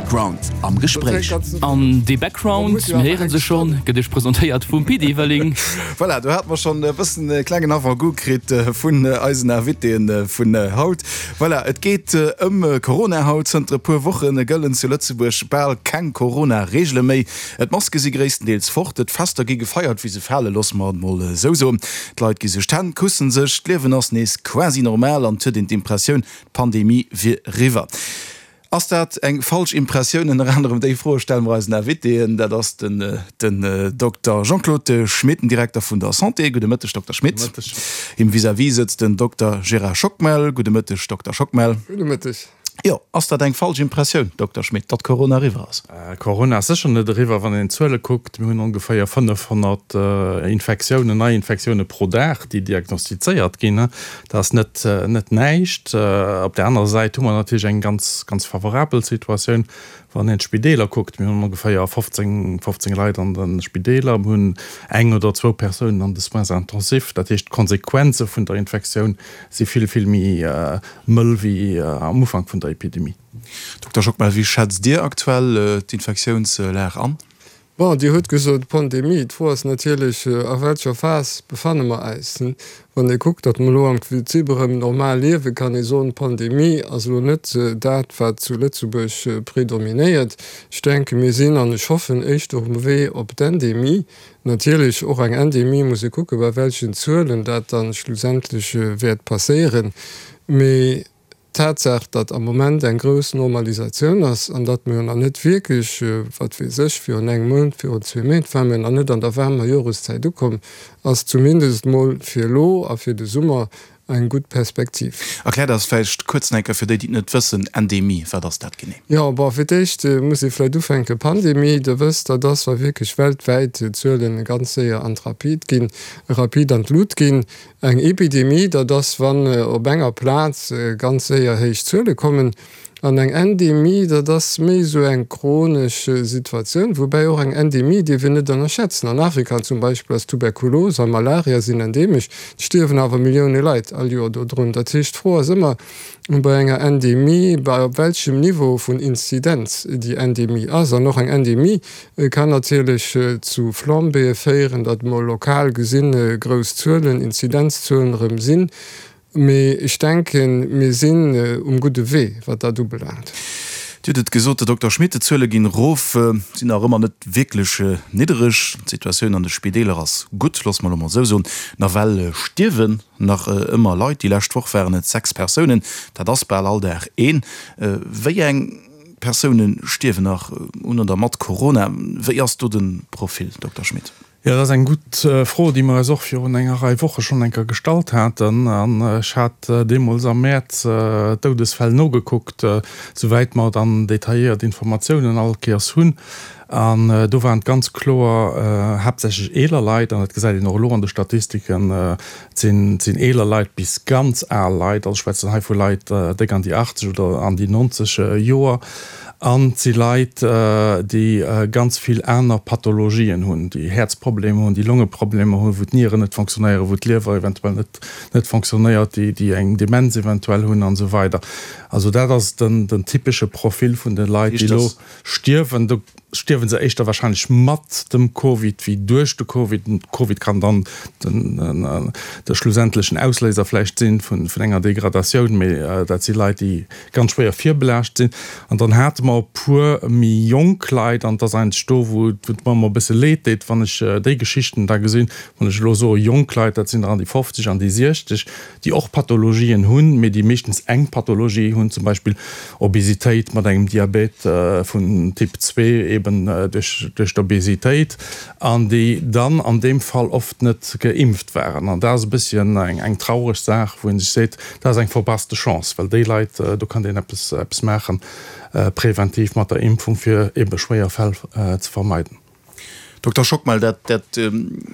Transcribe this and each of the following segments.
Background am Gespréich. An dee Background, mir héiere se schonn, gëtt iech presentéiert vum Pit Everling. Voilà, do hate mer schonn e bëssen e klengen Avant-goût kritt vun eisen Invitéen vun haut. Voilà, et geet ëm Corona haut. Zënter e puer Woche gëllen zu Lëtzebuerg bal keng Corona-Reegele méi. D'Maske si gréisstendeels fort, d'Fester gi gefeiert wéi se fale, loosse mer et mol esou soen. D'Leit gi sech d'Hänn, kussen sech, d'Liewen ass nees quasi normal an et huet een d'Impressioun, D'Pandemie wier eriwwer. Ass dat eng falsch Impressioun? Ënner anerem déi Froe stelle mer eisen Invitéen. Dat ass den den Dokter Jean-Claude Schmit, den Direkter vun der Santé. Gudde Mëtteg, Dokter Schmit. Gudde Mëtteg. Him vis-à-vis sëtzt den Dokter Gérard Schockmel. Gudde Mëtteg, Dokter Schockmel. Gudde Mëtteg. Jo, ass dat eng falsch Impressioun, Dokter Schmit, datt Corona eriwwer ass? Corona ass sécher net eriwwer, wann een d'Zuele kuckt. Mir hunn ongeféier 500 Infektiounen, Neiinfektioune pro Dag, déi diagnostizéiert ginn. Dat ass net, net näischt. Op där anerer Säit hu mer natierlech eng ganz, ganz favorabel Situatioun, wann een d'Spideeler kuckt. Mir hunn ongeféier 15, 15 Leit an de Spideeler. Mir hunn eng oder zwou Persounen an de Soins intensifs. Dat heescht, d'Konsequenze vun der Infektioun si vill, vill méi mëll wéi am Ufank vun der Epidemie. Dokter Schockmel, wéi schätzt Dir aktuell d'Infektiounslag an? Bon, Dir hutt gesot Pandemie. D'Fro ass natierlech, a welcher Phas befanne mer äis? Wann ee kuckt, datt mer elo am Prinzip erëm normal liewen, kann ee soen, d'Pandemie ass elo net dat, wat zu Lëtzebuerg predominéiert. Ech denken, mir sinn, an ech hoffen, éischter um Wee op d'Endemie. Natierlech, och eng Endemie muss ee kucken, bei welchen Zuelen dat dann schlussendlech wäert passéieren. Mee d'Tatsaach, datt am Moment eng grouss Normalisatioun ass an datt mir jo nach net wierklech, wat weess ech, virun engem Mount, virun zwee Méint ware mir nach net an der waarmer Joreszäit ukomm, ass zumindest mol fir elo a fir de Summer eng gutt Perspektiv. Erkläert eis vläicht kuerz nach eng Kéier, fir déi, déi et net wëssen, Endemie, wat ass dat genee? Jo, bon, fir d'éischt muss ee vläicht ufänken, Pandemie, Der wësst, dat ass, wa wierklech weltwäit d'Zuelen ganz séier an d'Rapid ginn, rapid an d'Lut ginn. Eng Epidemie, dat ass, wann op enger Plaz ganz séier héich Zuele kommen. An eng Endemie, dat ass méi esou eng chronesch Situatioun, woubäi och eng Endemie dierf een net ënnerschätzen. An Afrika zum Beispill ass Tuberkulos a Malaria sinn endemesch, et stierwen awer Millioune Leit all Joer dodrun. Dat heescht, d'Fro ass ëmmer bei enger Endemie, bei op welchem Niveau vun Inzidenz déi Endemie ass. An och eng Endemie kann natierlech zu Flambéeë féieren, datt mol lokal gesinn grouss Zuelen, Inzidenzzuelen erëm sinn. Mee ech denken, mir sinn um gudde Wee, wat dat ubelaangt. Dir hutt et gesot, Här Dokter Schmit, d'Zuele ginn erof, sinn nach ëmmer net wierklech niddereg. D'Situatioun an de Spideeler ass gutt, loosse mer elo mol esou soen. Nawell stierwen nach ëmmer Leit. Déi lescht Woch waren et 6 Persounen, dat ass bal all Dag een. Wéi eng Persoune stierwen nach un oder mat Corona? Wéi ass do de Profil, Dokter Schmit? Jo, dat ass eng gutt Fro, déi mer eis och virun enger Rei Woche schonn eng Kéier gestallt haten. An ech hat deemools am Mäerz d'Doudesfäll nogekuckt, souwäit mer dann detailléiert Informatiounen all Kéiers hunn. An do waren et ganz kloer haaptsächlech eeler Leit, an dat gesäit een och elo an de Statistiken, et sinn, et sinn eeler Leit bis ganz al Leit, also ech schwätzen hei vu Leit déck an déi 80 oder an déi 90 Joer. An et si Leit, déi ganz vill aner Pathologien hunn, déi Häerzproblemer hunn, déi Longeproblemer hunn, wou d'Nieren net fonctionnéieren, wou d'Liewer eventuell net net fonctionnéiert, déi déi eng Demenz eventuell hunn an esou weider. Also dat ass den den typesche Profil vun de Leit, déi elo stierwen. Do stierwe se éischter wahrscheinlech mat dem Covid wéi duerch de Covid. Den Covid kann dann den de schlussendlechen Ausléiser vläicht sinn vun vun enger Degradatioun, mee dat si Leit, déi ganz schwéier virbelaascht sinn. An dann hate mer e puer méi jonk Leit, an et ass eigentlech do, wou et mer ëmmer e bësse leed deet, wann ech déi Geschichten da gesinn, wann ech elo soe jonk Leit, dat sinn der an déi 50 an déi 60, déi och Pathologien hunn, mee déi meeschtens eng Pathologie hunn, zum Beispill Obesitéit mat engem Diabet vun Typ zwee, eben duerch d'Obesitéit, an déi dann an deem Fall oft net geimpft waren. An dat ass e bësschen eng traureg Saach, wou ee sech seet, dat ass eng verpasste Chance, well déi Leit, do kann een eppes eppes maachen, präventiv mat der Impfung, fir ebe schwéier Fäll ze vermeiden. Dokter Schockmel, dat dat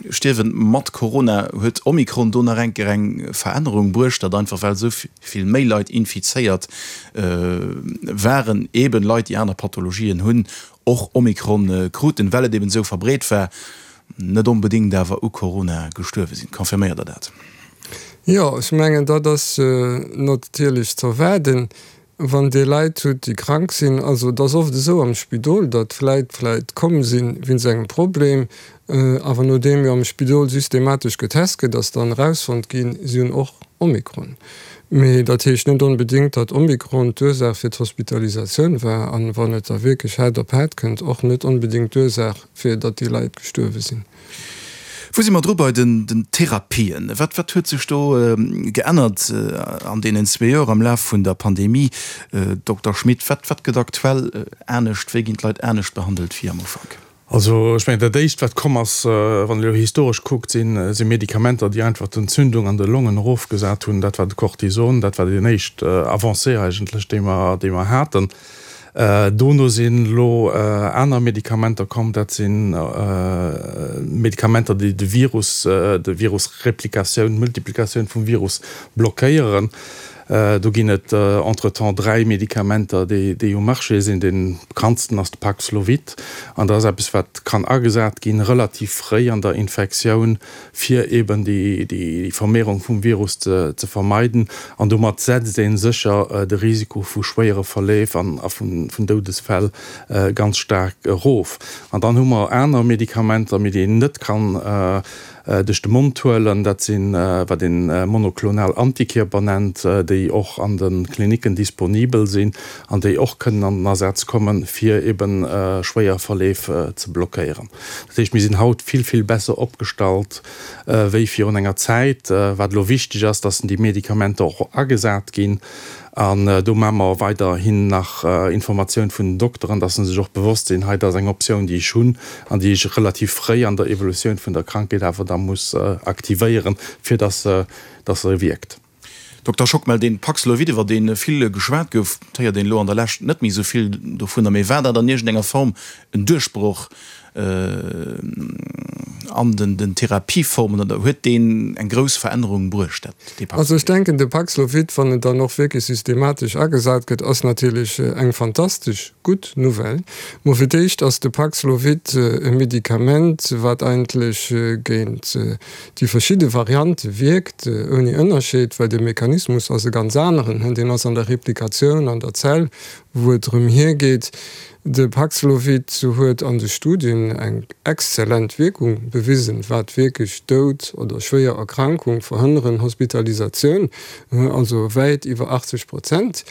Stierwen mat Corona, huet Omikron do nach eng Kéier eng Verännerung bruecht, datt einfach well esou vill méi Leit infizéiert waren, eben Leit, déi aner Pathologien hunn, och Omikron kruten, well et eben esou verbreet war, net onbedéngt awer u Corona gestuerwe sinn. Confirméiert Der dat? Jo, ech mengen, dat ass natierlech z'erwaarden. Wann Dir Leit hutt, déi krank sinn, also et ass oft esou am Spidol, datt Leit vläit komm si wéinst engem Problem, awer nodeem jo am Spidol systematesch getest gëtt, ass dann erausfonnt ginn, si hunn och Omikron. Mee dat heescht net onbedéngt, datt Omikron d'Ursaach fir d'Hospitalisatioun war an, wann et da wierklech haart op haart kënnt, och net onbedéngt d'Ursaach fir datt déi Leit gestuerwe sinn. Wou si mer dru bei den Therapien? Wat wat huet sech do geännert an deenen zwee Joer am Laf vun der Pandemie? Dokter Schmit, wat wat gëtt aktuell anescht? Wéi ginn d'Leit anescht behandelt wéi am Ufank? Also ech mengen, dat Éischt, wat komm ass, wann een elo historesch kuckt, si Medikamenter, déi einfach d'Entzündung an de Longen erofgesat hunn. Dat war de Cortison, dat war deen éischt Avancée eigentlech, déi mer, déi mer haten. Dono sinn elo aner Medikamenter komm, dat si Medikamenter, déi de Virus, de Virusreplikatioun, d'Multiplikatioun vum Virus blockéieren. Do ginn et entretemps 3 Medikamenter, déi um Marché sinn. Dee bekanntsten ass de Paxlovid. An dat ass eppes, wat kann agesat ginn, relativ fréi an der Infektioun, fir eben déi Vermehrung vum Virus ze vermeiden. An domat setzt ee sécher de Risiko vu schwéiere Verleef a vun Doudesfäll ganz staark erof. An dann hu mer aner Medikamenter, mee déi een net kann duerch de Mond huelen, dat sinn, wat een monoklonal Antikierper nennt, déi och an de Klinicken disponibel sinn an déi och kënnen an den Asaz kommen, fir eben schwéier Verleef ze blockéieren. Dat heescht, mir sinn haut vill, vill besser opgestallt wéi virun enger Zäit. Wat elo wichteg ass, dass déi Medikamenter och agesat ginn. An do maache mer weiderhin nach Informatioun vun den Dokteren, dass se sech och bewosst sinn, hei, dat ass eng Optioun, déi ech hunn an déi ech relativ fréi an der Evolutioun vun der Krankheet awer da muss aktivéieren, fir dass se, dass se wierkt. Dokter Schockmel, dee Paxlovid, iwwer dee vill geschwat gouf, et héiert een elo an der Lescht net méi esou vill dovunner, mee war dat an iergendenger Form en Duerchbroch an den Therapieformen oder huet deen eng grouss Verännerung bruecht, dat dee Paxlovid? Also ech denken, de Paxlovid, wann en dann och wierklech systematesch agesat gëtt, ass natierlech eng fantastesch gutt Nouvelle. Mo fir d'éischt ass de Paxlovid e Medikament, wat eigentlech géint déi verschidde Variante wierkt, ouni Ënnerscheed, well de Mechanismus ass e ganz aneren, deen ass an der Replikatioun an der Zell, wou et drëm hiergeet. De Paxlovid huet an de Studien eng exzellent Wierkung bewisen, wat wierklech Doud oder schwéier Erkrankung verhënneren, Hospitalisatioun, also wäit iwwer 80 Prozent.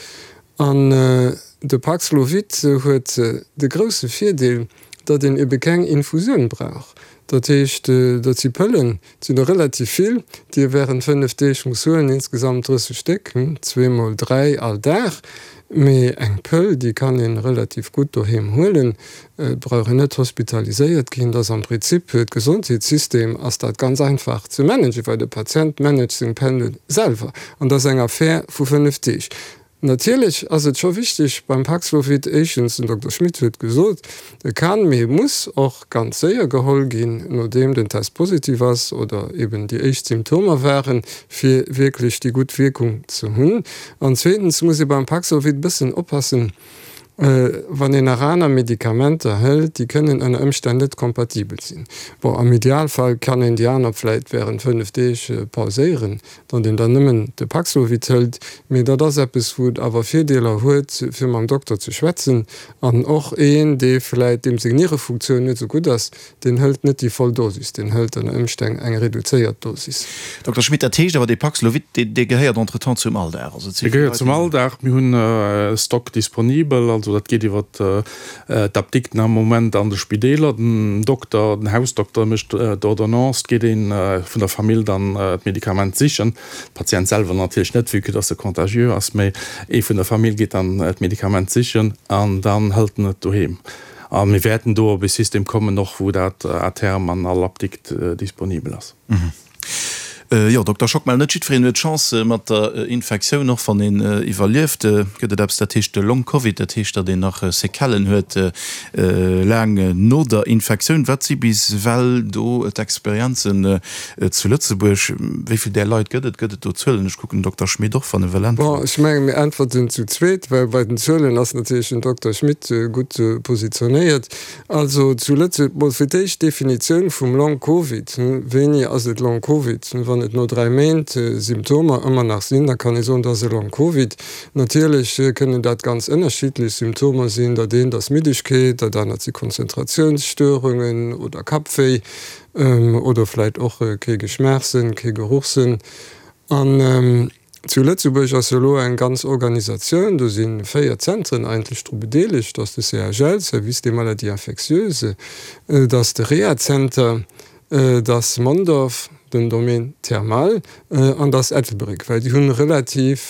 An de Paxlovid huet de grousse Virdeel, datt een ebe keng Infusioun brauch. Dat heescht, dat si Pëllen, et sinn der relativ vill, déi ee wärend 5 Deeg muss huelen, insgesamt 30 Stéck, zweemol 3 all Dag. Mee eng Pëll, déi kann ee relativ gutt doheem huelen, et brauch een net hospitaliséiert ginn. Dat ass am Prinzip fir d'Gesondheetssystem ass dat ganz einfach ze managen, well de Patient managt seng Pëlle selwer an dat ass eng Affär vu 5 Deeg. Natierlech ass et scho wichteg beim Paxlovid, éischtens, den Dokter Schmit huet gesot, e kann, mee e muss och ganz séier geholl ginn, nodeem den Test positiv ass oder eben déi éischt Symptomer waren, fir wierklech déi gutt Wierkung ze hunn. An zweetens muss ee beim Paxlovid e bëssen oppassen, wann een nach aner Medikamenter hëlt, déi kënnen ënner Ëmstänn net kompatibel sinn. Bon, am Idealfall kann een déi aner vläit wärend 5 Deeg pauséieren, datt een dann nëmmen de Paxlovid hëlt, mee dat ass eppes, wou et awer Virdeeler huet, fir mam Dokter ze schwätzen. An och een, dee vläit, deem seng Nierefunktioun net esou gutt ass, deen hëlt net déi voll Dosis, deen hëlt ënner Ëmstänn eng reduzéiert Dosis. Dokter Schmit, dat heescht awer, dee Paxlovid, dee gehéiert entretemps zum Alldag? Also et si Dee gehéiert zum Alldag. Mir hunn e Stock disponibel, also dat geet iwwer D'Apdikten am Moment an de Spideeler, den Dokter, den Hausdokter mécht d'Ordonnance, et geet ee vun der Famill dann d'Medikament sichen, de Patient selwer natierlech net, vue que dass e contagieux ass, mee ee vun der Famill geet dann d'Medikament sichen an dann hëlt en et doheem. A mir wäerten do op e System kommen och, wou dat à terme an all Apdikt disponibel ass. Jo, Dokter Schockmel, net jiddwereen huet Chance mat der Infektioun. Och wann een iwwerlieft, gëtt et eppes, dat heescht Long Covid. Dat heescht, datt een nach Séquellen huet laang no der Infektioun. Wat si bis ewell do d'Experienzen zu Lëtzebuerg? Wéi vill där Leit gëtt et? Gëtt et do Zuelen? Ech kucken den Dokter Schmit och, wann e wëll äntweren. Bon, ech mengen, mir äntwerten zu zweet, well bei den Zuelen ass natierlech den Dokter Schmit gutt positionéiert. Also zu Lëtzebuerg, mol fir d'éischt d'Definitioun vum Long Covid. Wéini ass et Long Covid? Wann et no 3 Méint Symptomer ëmmer nach sinn, da kann ee soen, dat ass e Long Covid. Natierlech kënnen dat ganz ënnerschiddlech Symptomer sinn, dat eent ass Middegkeet, dat anert si Konzentratiounsstörungen oder Kappwéi oder vläit och kee Geschmaachssënn, kee Geruchssënn. An zu Lëtzebuerg ass jo elo eng ganz Organisatioun, do si 4 Zentren eigentlech dru bedeelegt, dat ass de CHL, Service des maladies infectieuses, dat ass de Rehazenter, Et ass Mondorf, den Domaine thermal, an et ass Ettelbréck, well déi hunn relativ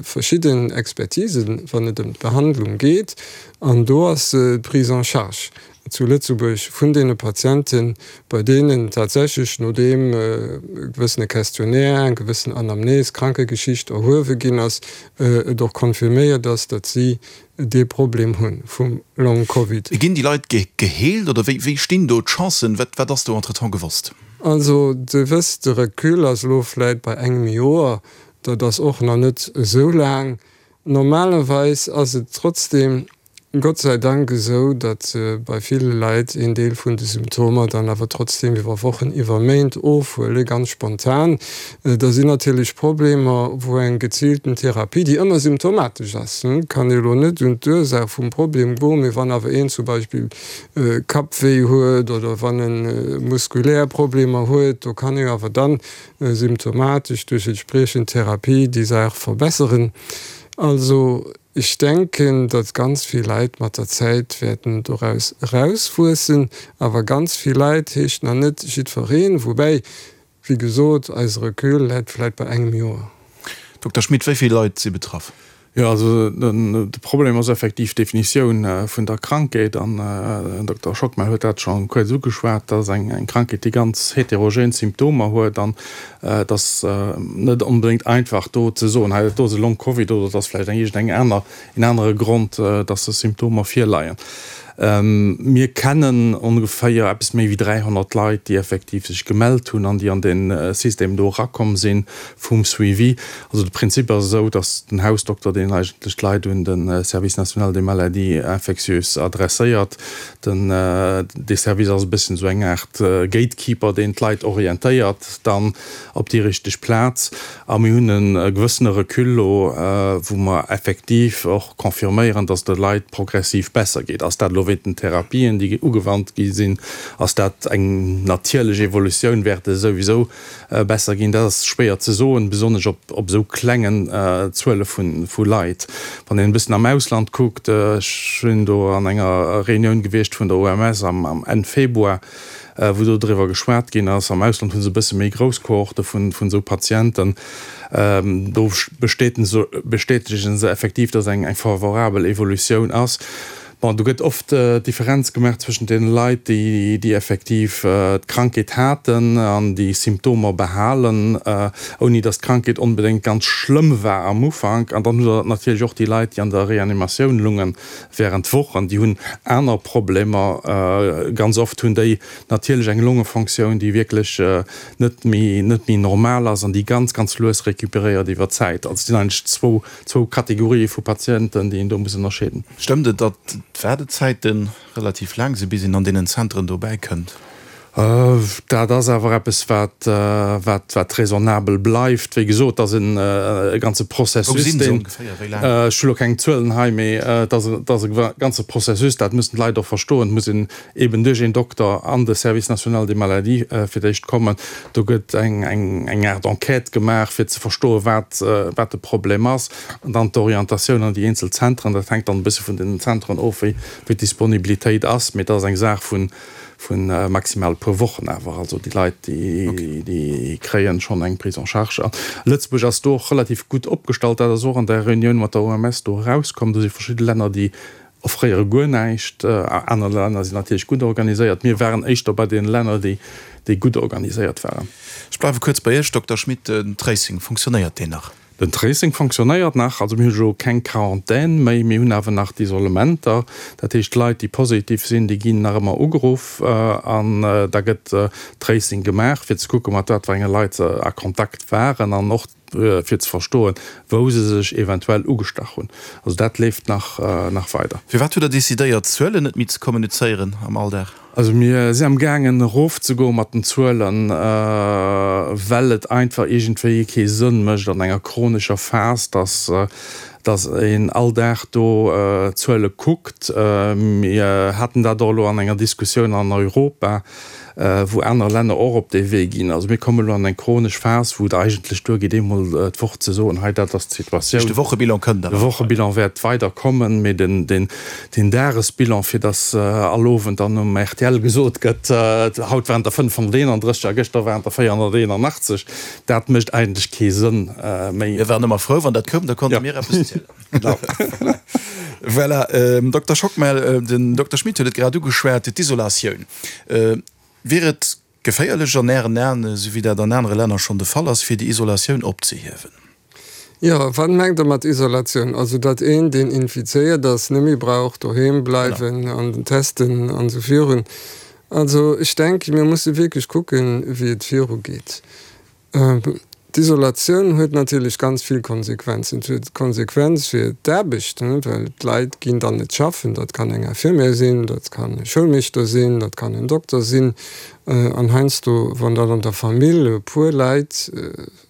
verschidden Expertisen, wann et ëm d'Behandlung geet. An do ass d'Prise en charge zu Lëtzebuerg vun deene Patienten, bei deenen tatsächlech, nodeem e gewëssene Questionnaire, eng gewëssen Anamnese, Krankegeschicht erhuewe ginn ass, et och confirméiert ass, datt si dee Problem hu vum Long Covid. Ginn déi Leit geheelt oder wéi stinn do d'Chancen? Wat ass do entretemps gewosst? Also Dir wësst, de Recul ass elo vläit bei engem Joer, dat ass och nach net esou laang. Normalerweis ass et trotzdeem Gott sei Dank esou, datt bei ville Leit een Deel vun de Symptomer dann awer trotzdeem iwwer Wochen, iwwer Méint ofhuelen, ganz spontan. Da sinn natierlech Problemer, wou eng geziilten Therapie, déi ëmmer symptomatesch ass, kann ee lo net un d'Ursaach vum Problem goen, mee wann awer een zum Beispill Kappwéi huet oder wann e muskulär Problemer huet, do kann ee awer dann symptomatesch duerch entspriechend Therapie déi Saach verbesseren. Also ech denken, datt ganz vill Leit mat der Zäit wäerten doraus erauswuessen, awer ganz vill Leit heescht nach net jiddwereen, woubäi Wéi gesot, eise Recul läit vläit bei engem Joer. Dokter Schmit, wéi vill Leit si betraff? Jo, also de Problem ass effektiv d'Definitioun vun der Krankheet. An den Dokter Schockmel huet dat scho kuerz ugeschwat. Dat ass eng Krankheet, déi ganz heterogen Symptomer huet. An et ass net onbedéngt einfach do ze soen, hei dat do ass e Long-Covid oder et ass vläicht eng iergendeng aner een anere Grond, dass des Symptomer virleien. Mir kennen ongeféier eppes méi wéi 300 Leit, déi effektiv sech gemellt hunn an déi an dee System do erakomm si vum Suivi. Also de Prinzip ass esou, dass den Hausdokter, deen eigentlech d'Leit un de Service national des maladies infectieuses adresséiert, den, dee Service ass e bësschen esou eng Aart Gatekeeper, deen d'Leit orientéiert dann op déi richteg Plaz. A mir hunn e gewëssene Recul elo, wou mer effektiv och confirméieren, dass et de Leit progressiv besser geet. Ass dat elo wéint den Therapien, déi ugewannt gi sinn? Ass dat eng natierlech Evolutioun? Wäert et souwisou besser ginn? Dat ass schwéier ze soen, besonnesch op esou klengen Zuele vu Leit. Wann een e bëssen am Ausland kuckt, ech sinn do an enger Reunioun gewiescht vun der OMS am Enn Februar, wou do driwwer geschwat ginn ass. Am Ausland hu se e bësse méi grouss Kohorte vun esou Patienten. Do bestätegen se effektiv, datt eng favorabel Evolutioun ass. Bon, do gëtt oft d'Differenz gemaach zwëschent deene Leit, déi effektiv d'Krankheet haten an déi Symptomer behalen, ouni datt d'Krankheet onbedéngt ganz schlëmm war am Ufank. An dann hutt Der natierlech och déi Leit, déi an der Reanimatioun lungen, Während Wochen, déi hunn aner Problemer, ganz oft hunn déi natierlech eng Longefonctioun, déi wierklech net méi, net méi normal ass an déi ganz, ganz lues recuperéiert iwwer d'Zäit. Also et sinn eigentlech zwou, zwou Kategorië vu Patienten, déi een do muss ënnerscheeden. Stëmmt et, datt d'Waardezäite relativ laang sinn, bis een an deenen Zentren dobäi kënnt? Dat ass awer eppes, wat, wat, wat raisonnabel bleift. Wéi gesot, et ass en e ganze Processus, deen, ech hu lo keng Zuelen hei, mee et ass, et ass e ganze Processus, dat mussen d'Leit och verstoen. Et muss een eeben duerch een Dokter an de Service national des maladies fir d'éischt kommen. Do gëtt eng, eng, eng Aart Enquête gemaach, fir ze verstoen, wat, wat de Problem ass. An dann d'Orientatioun an déi eenzel Zentren. Dat hänkt dann e bësse vun den Zentren of, wéi, wéi d'Disponibilitéit ass. Mee et ass eng Saach vun, Vu maximal e puer Wochen awer. Also déi Leit, déi kréien schonn eng Prise en charge. A Lëtzebuerg ass do och relativ gutt opgestallt. Dat ass och an der Reunioun mat der OMS do erauskomm. Do si verschidde Länner, déi offréiere guer näischt. Aner Länner sinn natierlech gutt organiséiert. Mir waren éischter bei deene Länner, déi gutt organiséiert waren. Ech bleiwe kuerz bei Iech, Dokter Schmit. Den Tracing, funktionéiert deen nach? Den Tracing fonctionnéiert nach, also mir hu jo keng Quarantän méi, mir hunn awer nach d'Isolementer. Dat heescht, d'Leit, déi positiv sinn, déi ginn nach ëmmer ugeruff an da gëtt Tracing gemaach, fir ze kucken, mat wat fir enge Leit se a Kontakt waren an och. fir ze verstoen, wou se sech eventuell ugestach hunn. Also dat leeft nach nach weider. Firwat hutt Der decidéiert, d'Zuelen net méi ze kommunizéieren am Alldag? Also mir si am gaangen erofzegoe mat den Zuelen, well et einfach iergendwéi kee Sënn mécht an enger chronescher Phas, dass dass een all Dag do Zuele kuckt. Mir haten dat och elo an enger Diskussioun an Europa, wou aner Länner och op dee Wee ginn. Also mir kommen elo an eng chronesch Phas, wou et eigentlech duergeet, eemol d'Woch ze soen, hei dat ass d'Situatioun. De Wochebilan kënnt awer. De Wochebilan wäert weider kommen, mee den Dagesbilan, fir datt all Owend dann um rtl gesot gëtt, haut waren der 531 a gëschter waren der 481, dat mécht eigentlech kee Sënn méi. Mir waren ëmmer frou, wann dat koum, da konnte mir eppes zielen. Genau. Voilà, Dokter Schockmel, den Dokter Schmit huet et grad ugeschwat, d'Isolatioun. Wier et geféierlech an Ären Aen, esou wéi dat an anere Länner schonn de Fall ass, fir déi Isolatioun opzehiewen? Jo, wat mengt Der mat Isolatioun? Also datt een, deen infizéiert ass, net méi brauch doheem bleiwen an testen an esou virun. Also ech denken, mir musse wierklech kucken, wéi et virugeet. D'Isolatioun huet natierlech ganz vill Konsequenzen. Et huet Konsequenz fir d'Aarbecht, well d'Leit ginn dann net schaffen. Dat kann eng Infirmière sinn, dat kann e Schoulmeeschter sinn, dat kann en Dokter sinn. An heiansdo, wann dann an der Famill e puer Leit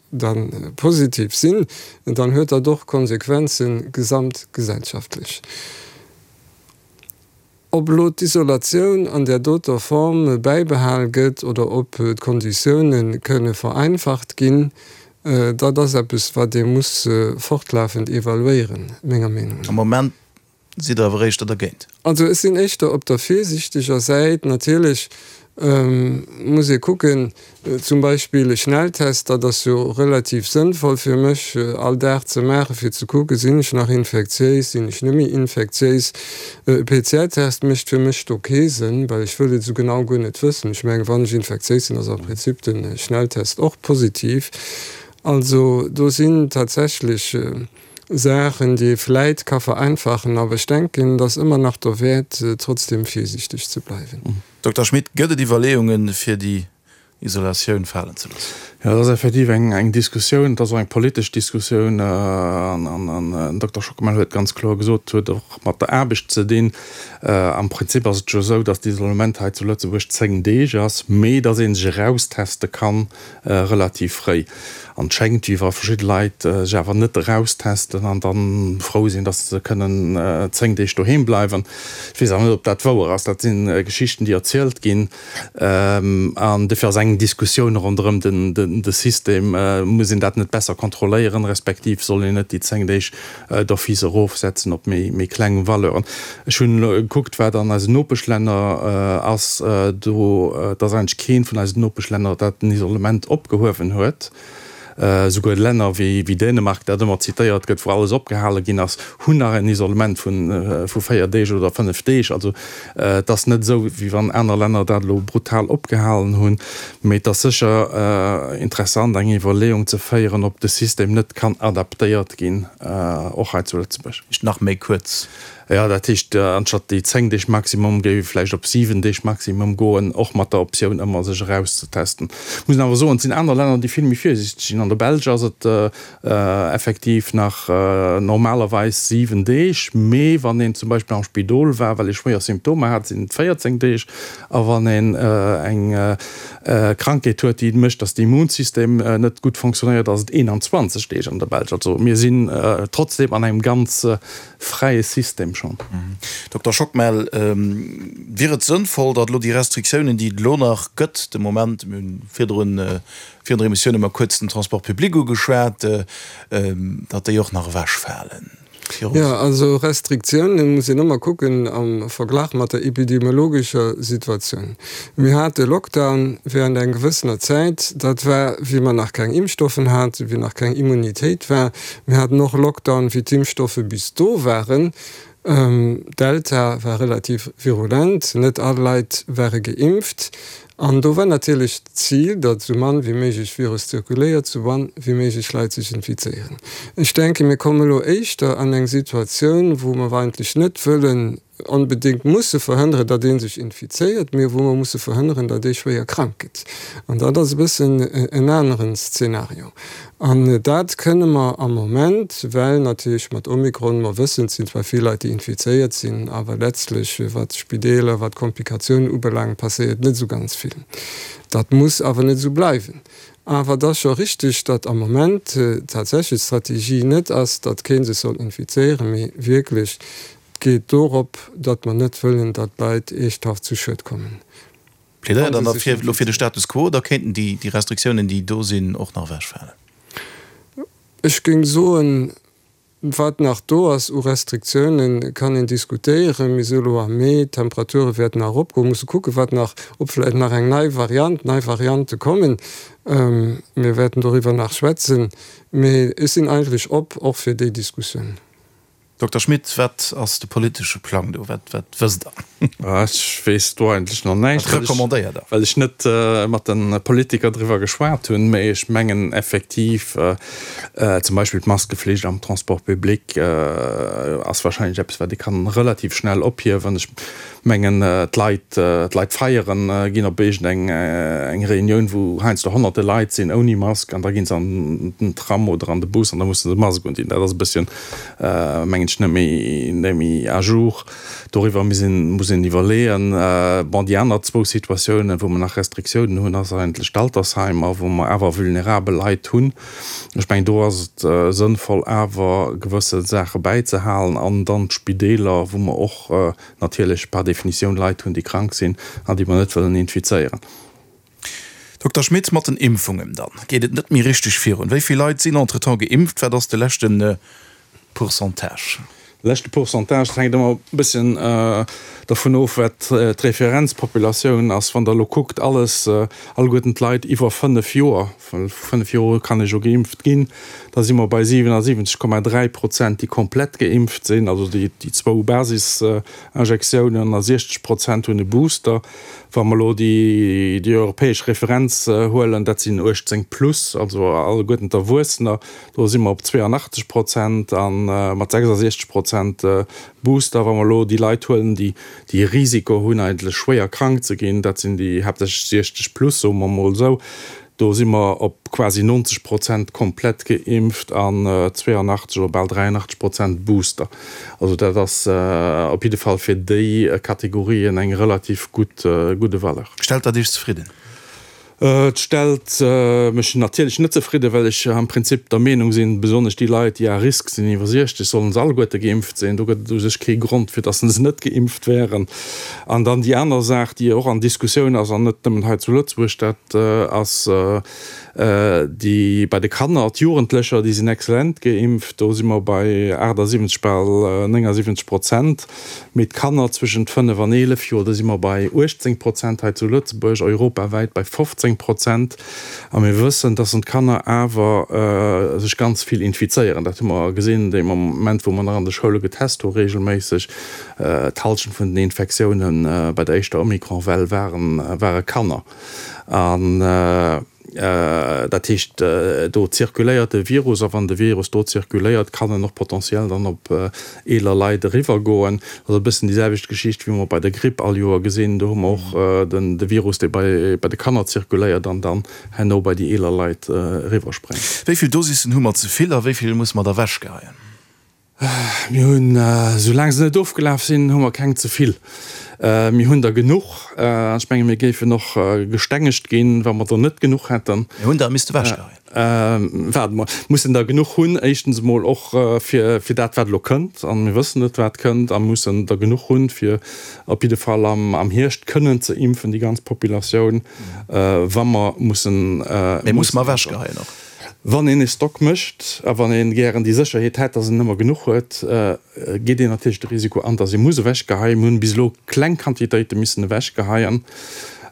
da positiv sinn, dann huet dat och Konsequenze gesamtgesellschaftlech. Ob elo d'Isolatioun an där doter Form bäibehal gëtt oder ob d'Konditioune kënne vereinfacht ginn, dat ass eppes, wat ee muss fortlafend evaluéieren, menger Meenung no. Am Moment sidd Der awer éischter dergéint? Also ech sinn éischter op der virsiichteger Säit. Natierlech muss ee kucken, Zum Beispill e Schnelltest, dat ass jo relativ sënnvoll fir mech all Dag ze maachen, fir ze kucken, sinn ech nach infektiéis, sinn ech net méi infektiéis. E PCR-Test mécht fir mech do kee Sënn, well ech wëll et esou genau guer net wëssen. Ech mengen, wann ech infektiéis sinn, ass am Prinzip de Schnelltest och positiv. Also do sinn tatsächlech Saachen, déi ee vläit ka vereinfachen, awer ech denken, et ass ëmmer nach derwäert, trotzdem virsiichteg ze bleiwen. Dokter Schmit, gëtt et Iwwerleeungen, fir déi Isolatioun falen ze loossen? Jo, dat ass effektiv eng Diskussioun, et ass och eng politesch Diskussioun. An den Dokter Schockemel huet ganz kloer gesot, et huet och mat der Aarbecht ze dinn. Am Prinzip ass et jo esou, datt d'Isolement hei zu Lëtzebuerg 10 Deeg ass, mee datt ee sech erausteste kann relativ fréi. An et schéngt, wéi wa verschidde Leit sech awer net eraustesten an da frou sinn, datt se kënnen 10 Deeg doheem bleiwen. Ech weess awer net, ob dat wouer ass. Dat si Geschichten, déi erzielt ginn. An dofir ass eng Diskussioun ronderëm de System, Muss een dat net besser kontrolléieren, respektiv soll een net déi 10 Deeg d'office erofsetzen op méi kleng Valeuren. Ech hunn elo gekuckt, wat an eisen Nopeschlänner ass. Do, et ass eigentlech keent vun eisen Nopeschlänner, dat den Isolement opgehuewen huet. Esouguer Länner wéi Dänemark, dat ëmmer zitéiert gëtt, wou alles opgehale ginn ass, hunn nach en Isolement vu 4 Deeg oder 5 Deeg. Also et ass net esou, wéi wann aner Länner dat elo brutal opgehalen hunn. Mee et ass sécher interessant, eng Iwwerleeung ze féieren, ob de System net kann adaptéiert ginn, och hei zu Lëtzebuerg. Heescht nach méi kuerz. Jo, dat heescht, anstatt déi 10 Deeg Maximum géif ee vläicht op 7 Deeg Maximum goen, och mat der Optioun ëmmer sech erauszetesten. Ech muss awer soen, et sinn aner Länner, déi vill méi virsiichteg sinn. An der Belsch ass et effektiv nach normalerweis 7 Deeg, mee wann een zum Beispill am Spidol war, well ee schwéier Symptomer hat, sinn et 14 Deeg. A wann een eng Krankheet huet, déi mécht, datt de Immunsystem net gutt fonctionnéiert, ass et 21 Deeg an der Belsch. Also mir sinn trotzdeem an engem ganz fräie System schonn. Dokter Schockmel, wier et sënnvoll, datt elo déi Restriktiounen, déi et elo nach gëtt, de Moment, mir hunn virdrun, virun der Emissioun hu mer kuerz den Transport public ugeschwat, datt déi och nach ewechfalen? Jo, also Restriktiounen muss een ëmmer kucken am Verglach mat der epidemiologescher Situatioun. Mir hate Lockdown während eng gewëssener Zäit, dat war wéi mer nach keng Impfstoffen haten, wéi nach keng Immunitéit war. Mir haten och Lockdown, wéi d'Impfstoffe bis do waren. Delta war relativ virulent, net all Leit ware geimpft. An do war natierlech d'Zil, datt esou mann wéi méiglech Virus zirkuléiert, esou mann wéi méiglech Leit sech infizéieren. Ech denken, mir kommen elo éischter an eng Situatioun, wou mer eigentlech net wëllen. onbedéngt musse verhënneren, datt ee sech infizéiert, mee wou mer musse verhënneren, datt ee schwéier krank gëtt. An dat ass e bëssen en aneren Szenario. An dat kënne mer am Moment, well natierlech mat Omikron, mer wëssen, et sinn zwar vill Leit, déi infizéiert sinn, awer letztlech, wat d'Spideeler, wat d'Komplikatiounen ubelaangt, passéiert net esou ganz vill. Dat muss awer net esou bleiwen. Awer et ass scho richteg, datt am Moment tatsächlech d'Strategie net ass, datt kee sech soll infizéieren, mee wierklech et geet dorop, datt mer net wëllen, datt d'Leit eeschthaft zu Schued kommen. Plädéiert Der dann elo fir de Status quo oder kéinten déi Restriktiounen, déi do sinn, och nach ewechfalen? Ech géing soen, Wat nach do ass u Restriktiounen, kann een diskutéieren. Mir si elo am Mee, d'Temperature wäerten nach eropgoen. Musse kucken, wat nach, ob vläicht nach eng nei Variant, nei Variante kommen. Mir wäerten doriwwer nach schwätzen. Mee ech sinn eigentlech op och fir déi Diskussioun. Dokter Schmit, wat ass de politesche Plang do? Wat, wat wësst Der? Ech weess do eigentlech nach näischt. Wat recommandéiert Der? Well ech net mat de Politiker driwwer geschwat hunn. Mee ech mengen effektiv, Zum Beispill d'Maskeflicht am Transport public ass wahrscheinlech eppes, wat ee kann relativ schnell ophiewen. Ech mengen, d'Leit, d'Leit feieren, ginn op iergend eng eng Reunioun, wou heiansdo honnerte Leit sinn ouni Mask, an da gi se an den Tram oder an de Bus an da musse se Mask undinn. Dat ass e bësschen, mengen ech, net méi, net méi à jour. Doriwwer muss een, muss een iwwerleeën. Bon, déi aner zwou Situatiounen, wou mer nach Restriktiounen hunn, ass eigentlech d'Altersheimer, wou mer awer vulnerabel Leit hunn. Ech mengen, do ass et sënnvoll, awer gewësse Saache bäizehalen. An dann d'Spideeler, wou mer och natierlech par définition Leit hunn, déi krank sinn an déi mer net wëllen infizéieren. Dokter Schmit, mat den Impfungen dann geet et net méi richteg virun. Wéi vill Leit sinn entretemps geimpft? Wat ass de leschte Pourcentage? De leschte Pourcentage, dat hänkt ëmmer e bësschen dovun of, wat d'Referenzpopulatioun ass. Wann Der elo kuckt, alles, alleguerten d'Leit iwwer 5 Joer, well vu 5 Joer u kann ee jo geimpft ginn, da si mer bei 77,3 Prozent, déi komplett geimpft sinn, also déi zwou Basisinjektiounen, a 60 Prozent hunn e Booster. Wa mer elo déi europäesch Referenz huelen, dat sinn 18 plus, also alleguerten d'Erwuessener, do si mer op 82 Prozent a mat 66 Prozent Booster. Wa mer elo déi Leit huelen, déi e Risiko hunn, eigentlech schwéier krank ze ginn, dat sinn déi haaptsächlech 60 plus, soe mer emol esou, Do si mer op quasi 90 Prozent komplett geimpft an 82 oder bal 83 Prozent Booster. Also dat ass op jidde Fall fir déi Kategorien eng relativ gutt gudde Valeur. Stellt dat Iech zefridden? Et stellt mech natierlech net zefridden, well ech am Prinzip der Meenung sinn, besonnesch déi Leit, déi à risque sinn, iwwer 60, sollen se alleguerte geimpft sinn. Do gëtt et u sech kee Grond, fir datt se net geimpft wären. An dann déi aner Saach, déi och an Diskussioun ass, an net nëmmen hei zu Lëtzebuerg, dat ass déi bei de Kanner, d'Jugendlecher, déi sinn exzellent geimpft, do si mer bei 78, bal 79 Prozent, mee d'Kanner zwëschent 5 an 11 Joer, do si mer bei 18 Prozent hei zu Lëtzebuerg, europawäit bei 15 Prozent. A mir wëssen, dass d'Kanner awer sech ganz vill infizéieren. Dat hu mer gesinn dee Moment, wou mer nach an de Schoule getest hu regelméisseg. D'Hallschent vun den Infektioune bei der éischter Omikron-Well ware Kanner. An dat heescht, do zirkuléiert de Virus. A wann de Virus do zirkuléiert, kann en och potentiell dann op eeler Leit eriwwergoen. Dat ass e bëssen déi selwecht Geschicht, wéi mer bei der Gripp all Joer gesinn. Do hu mer och de Virus, dee bei de Kanner zirkuléiert an dann herno bei déi eeler Leit eriwwerspréngt. Wéi vill Dosissen hu mer ze vill a wéi vill musse mer der ewechgeheien? Mir hunn, soulaang se net ofgelaf sinn, hu mer keng ze vill. Mir hunn der genuch. An ech menge mir géifen och gestengegt ginn, wa mer der net genuch hätten. Mir hunn der misste ewechgeheien. Waarde mer, mussen der genuch hunn, éischtens emol och fir dat, wat elo kënnt, a mir wëssen net, wat kënnt, a mussen der genuch hunn, fir op jidde Fall am Hierscht kënnen ze impfen, déi ganz Populatioun, wa mer mussen. Mee musse mer ewechgeheien och? Wann een e Stock mécht a wann ee gären déi Sécherheet hätt, datt een ëmmer genuch huet, geet een natierlech de Risiko an, datt ee muss ewechgeheien. Mir hunn bis elo kleng Quantitéite missen ewechgeheien.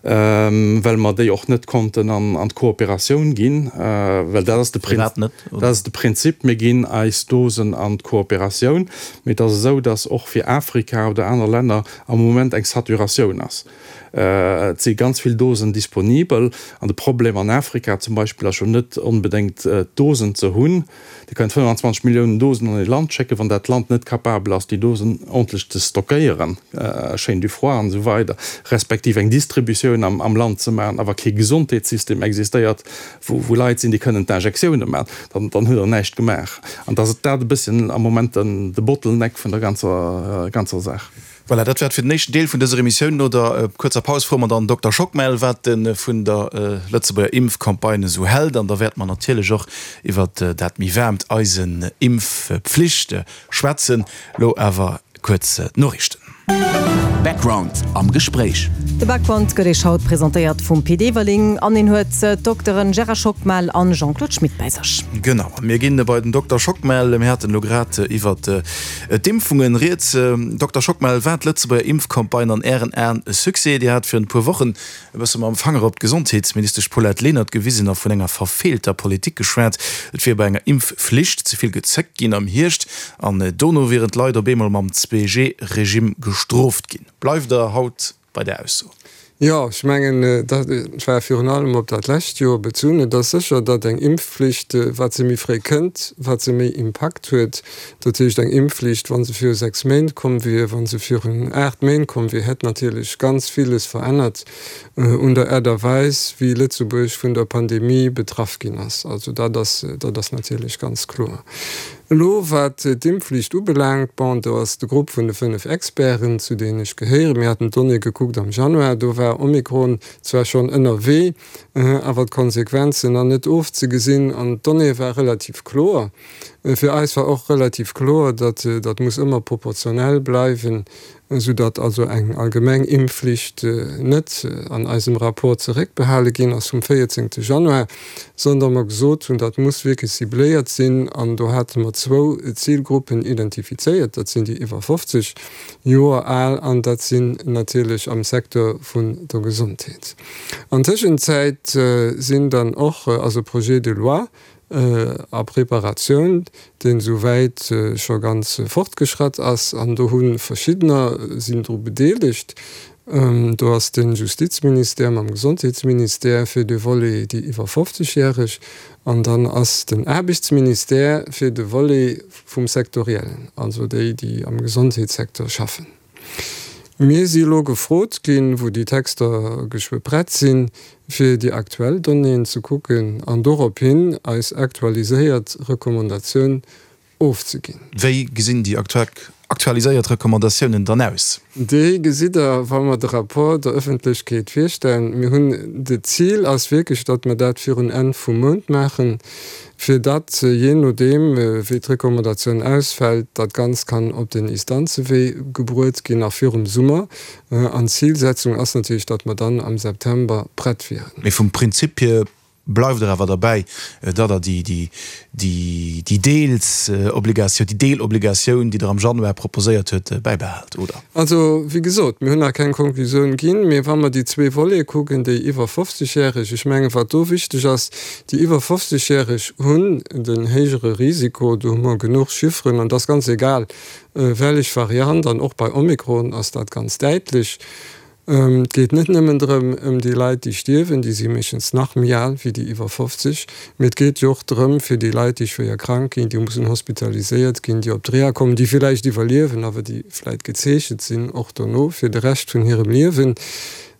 Well mer déi och net konnten an d'Kooperatioun ginn, well dat ass de Firwat net? Dat ass de Prinzip, mir ginn eis Dosen an d'Kooperatioun, mee et ass esou, datt och fir Afrika oder aner Länner am Moment eng Saturatioun ass. Et si ganz vill Dosen disponibel an de Problem an Afrika zum Beispill ass jo net onbedéngt d'Dosen ze hunn, Dir kënnt 25 Milliounen Dosen an ee Land schécken, wann dat Land net capabel ass, déi Dosen ordentlech ze stockéieren, Chaîne du froid an esou weider, respektiv eng Distributioun am Land ze maachen, awer kee Gesondheetssystem existéiert, wou Leit sinn, déi kënnen d'Injektiounen maachen, dann hutt Der näischt gemaach. An dass dat e bësschen am Moment de Bottleneck vun der ganzer Saach. Voilà, dat war et fir den éischten Deel vun dëser Emissioun. No der kuerzer Paus froe mer dann den Dokter Schockmel, wat e vun der Lëtzebuerger Impfcampagne esou hält. An da wäerte mer natierlech och iwwer dat méi waarmt Eisen Impfpflicht schwätzen. Lo awer kuerz d'Noriichten. Background am Gespréich. De Background gëtt Iech haut presentéiert vum Pit Everling an en huet d'Dokteren Gérard Schockmel an Jean-Claude Schmit bäi sech. Genau, a mir ginn bei den Dokter Schockmel. Mir haten elo grad iwwert D'Impfungen rieds. Dokter Schockmel, war d'Lëtzebuerger Impfcampagne an Ären Aen e Succès? Dir hat virun e puer Wochen e bësse mam Fanger op d'Gesondheetsministesch Paulette Lenert gewisen a vun enger verfeelter Politik geschwat. Et wier bei enger Impfflicht ze vill gezéckt ginn am Hierscht an dono wieren d'Leit op eemol mam 2G-Regime gestrooft ginn. Bleift Der haut bei där Ausso? Jo, ech mengen, dat war virun allem op dat lescht Joer bezunn. Et ass sécher, datt eng Impfflicht, wat se méi fréi kënnt, wat se méi Impakt huet. Dat heescht, eng Impfflicht, wa se viru 6 Méint komm wier, wa se virun 8 Méint komm wier, hätt natierlech ganz villes verännert un der Aart a Weis, wéi Lëtzebuerg vun der Pandemie betraff ginn ass. Also dat ass, dat ass natierlech ganz kloer. Elo wat d'Impfflicht ubelaangt, bon, do ass de Grupp vun de 5 Experten, zu deenen ech gehéieren, mir haten d'Donnée gekuckt am Januar, do war Omikron zwar schonn ënnerwee, awer d'Konsequenzen nach net ofzegesinn an d'Donnée war relativ kloer. Fir eis war och relativ kloer, datt dat muss ëmmer proportionell bleiwen, soudatt also eng allgemeng Impfflicht net an eisem Rapport zeréckbehale ginn ass vum 14 Januar, sondern mer gesot hunn, dat muss wierklech cibléiert sinn. An do hate mer zwou Zilgruppen identifizéiert, dat sinn déi iwwer 50 Joer al an dat sinn natierlech am Secteur vun der Gesondheet. An Tëschenzäit sinn dann och, ass e Projet de loi a Preparatioun, deen esouwäit scho ganz fortgeschratt ass, an do hu verschiddener sinn dru bedeelegt. Do ass de Justizministère mam Gesondheetsministère fir de Volet déi iwwer 50 järeg an dann ass den Aarbechtsministère fir de Volet vum Sektoriellen, also déi, déi am Gesondheetssecteur schaffen. Mir si elo gefrot ginn, wou déi Texter geschwë prett sinn, fir déi aktuell Donnéeën ze kucken an dorophin eis aktualiséiert Recommandatioun ofzeginn. Wéi gesinn déi aktualiséiert Recommandatiounen dann aus? Déi gesitt Der, wa mer de Rapport der Ëffentlechkeet virstellen. Mir hunn, de Zil ass wierklech, datt mer dat virun Enn vum Mount maachen, fir datt, jee nodeem wéi d'Recommandatioun ausfält, dat Ganzt kann op den Istanzewee gebruet ginn, nach virum Summer. An d'Zilsetzung ass natierlech, datt mer dann am September prett wieren. Mee vum Prinzip hier Bleift Der awer derbäi, datt Der déi Deelsobligatioun, déi Deelobligatioun, déi Der am Januar proposéiert huet, bäibehält, oder? Also, wéi gesot, mir hunn nach keng Konklusioun ginn. Mee wa mer déi zwee Volete kucken, déi iwwer 50 Järeg, ech mengen, wat do wichteg ass, déi iwwer 50 Järeg hunn den héijere Risiko, do hu mer genuch Chifferen, an et ass ganz egal, wellech Variant, an och bei Omikron ass dat ganz däitlech, Et geet net nëmmen drëm, ëm déi Leit, déi stierwen, déi si meeschtens nach méi al wéi déi iwwer 50, mee et geet jo och drëm, fir déi Leit, déi schwéier krank ginn, déi mussen hospitaliséiert ginn, déi op d'Reha kommen, déi villäicht iwwerliewen, awer déi vläicht gezeechent sinn och dono fir de Rescht vun hirem Liewen.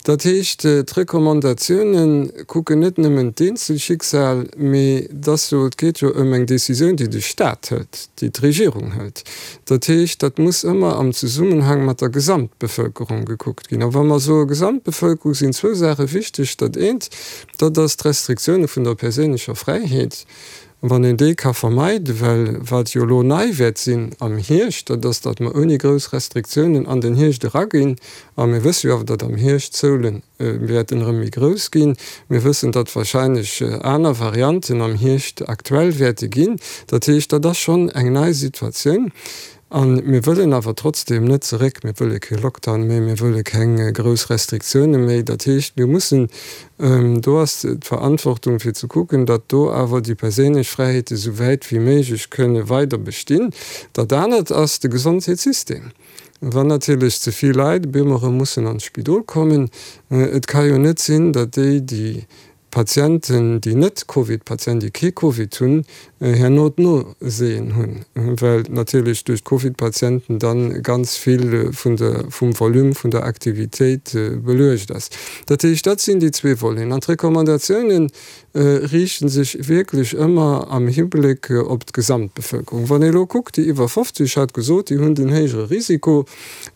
Dat heescht, d'Recommandatiounen kucken net nëmmen d'Eenzelschicksal, mee et ass jo, et geet jo ëm eng Décisioun, déi de Stat hëlt, déi d'Regierung hëlt. Dat heescht, dat muss ëmmer am Zesummenhang mat der Gesamtbevölkerung gekuckt ginn. A wa mer soe Gesamtbevölkerung, sinn zwou Saache wichteg. Dat eent, dat ass d'Restriktioune vun der perséinlecher Fräiheet, wann een déi ka vermeiden, well wat jo elo nei wäert sinn am Hierscht, dat ass, datt mer ouni grouss Restriktiounen an den Hierscht eraginn. A mir wësse jo awer, datt am Hierscht d'Zoulen wäerten erëm méi grouss ginn. Mir wëssen, datt wahrscheinlech aner Varianten am Hierscht aktuell wäerte ginn. Dat heescht, dat ass schonn eng nei Situatioun. A mir wëllen awer trotzdeem net zeréck, mir wëlle kee Lockdown méi, mir wëlle keng grouss Restriktioune méi. Dat heescht, mir mussen, do ass d'Verantwortung fir ze kucken, datt do awer déi perséinlech Fräiheete sou wäit wéi méiglech kënne weider bestinn. Dat anert ass de Gesondheetssystem. Wann natierlech ze vill Leit op eemol erëm mussen an d'Spidol kommen, et ka jo net sinn, datt déi, déi Patienten, déi net Covid-Patienten, déi kee Covid hunn, herno d'Noséen hunn, well natierlech duerch d'Covid-Patienten dann ganz vill vun der, vum Volume vun der Aktivitéit beluecht ass. Dat heescht, dat sinn déi zwee Voleten. An d'Recommandatiounen riichte sech wierklech ëmmer am Hibléck op d'Gesamtbevëlkerung. Wann ee elo kuckt, déi iwwer 50, ech hat gesot, déi hunn den héijere Risiko.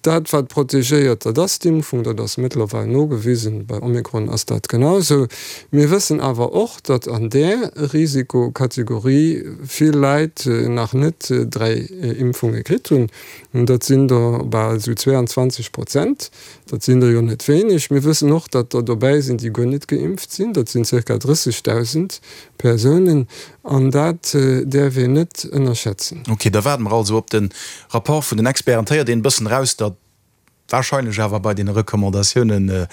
Dat, wat protegéiert, dat ass d'Impfung, dat ass mëttlerweil nogewisen. Bei Omikron ass dat genau esou. Mir wëssen awer och, datt an där Risikokategorie vill Leit nach net 3 Impfunge kritt hunn. Dat sinn der bal esou 22 Prozent. Dat sinn der jo net wéineg. Mir wëssen och, datt der dobäi sinn, déi guer net geimpft sinn. Dat sinn zirka 30.000 Persounen. An dat däerf een net ënnerschätzen. Ok, da waarde mer also op de Rapport vun den Experten. Et héiert een e bëssen eraus, datt warscheinlech awer bei deene Recommandatioune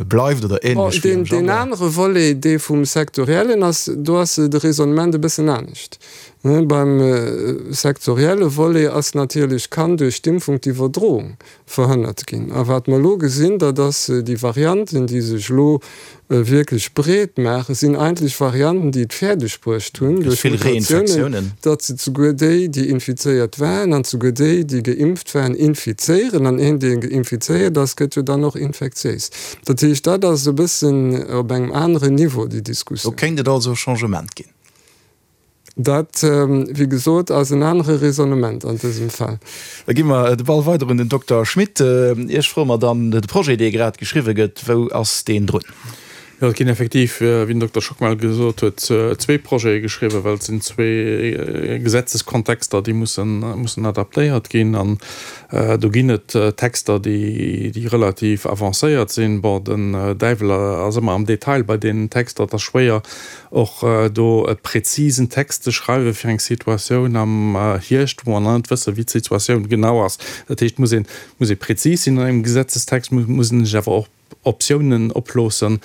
bleift oder änlech wéi am Januar. Deen anere Volet, dee vum Sektoriellen ass, do ass de Raisonnement e bëssen anescht. Beim sektorielle Volet ass natierlech, kann duerch d'Impfung d'Iwwerdroung verhënnert ginn. A wat mer elo gesinn, dat ass, déi Varianten, déi sech elo wierklech breet maachen, sinn eigentlech Varianten, déi et fäerdeg bruecht hunn, duerch Mutatiounen, datt se souguer déi, déi infizéiert waren, an souguer déi, déi geimpft waren, infizéieren. An een, dee infizéiert ass, gëtt jo dann och infektiéis. Dat heescht, dat ass e bëssen op engem aneren Niveau, déi Diskussioun. Do kéint et also e Changement ginn. Dat, wéi gesot, ass en anere Raisonnement an dësem Fall. Da gi mer de Ball weider un den Dokter Schmit. Iech froe mer dann de Projet, dee grad geschriwwe gëtt, wou ass deen drun? Jo, et ginn effektiv, wéi den Dokter Schockmel gesot huet, zwee Projete geschriwwen, well et sinn zwee Gesetzeskontexter, déi mussen, mussen adaptéiert ginn. An do ginn et Texter, déi, déi relativ avancéiert sinn. Bon, den Däiwel ass ëmmer am Detail bei deenen Texter. Et ass schwéier, Och do e präzisen Text ze schreiwe fir eng Situatioun am Hierscht, wou mer nach net wëssen, wéi d'Situatioun genau ass. Dat heescht, muss een, muss ee präzis sinn an engem Gesetzestext, muss een sech awer och Optiounen oploossen,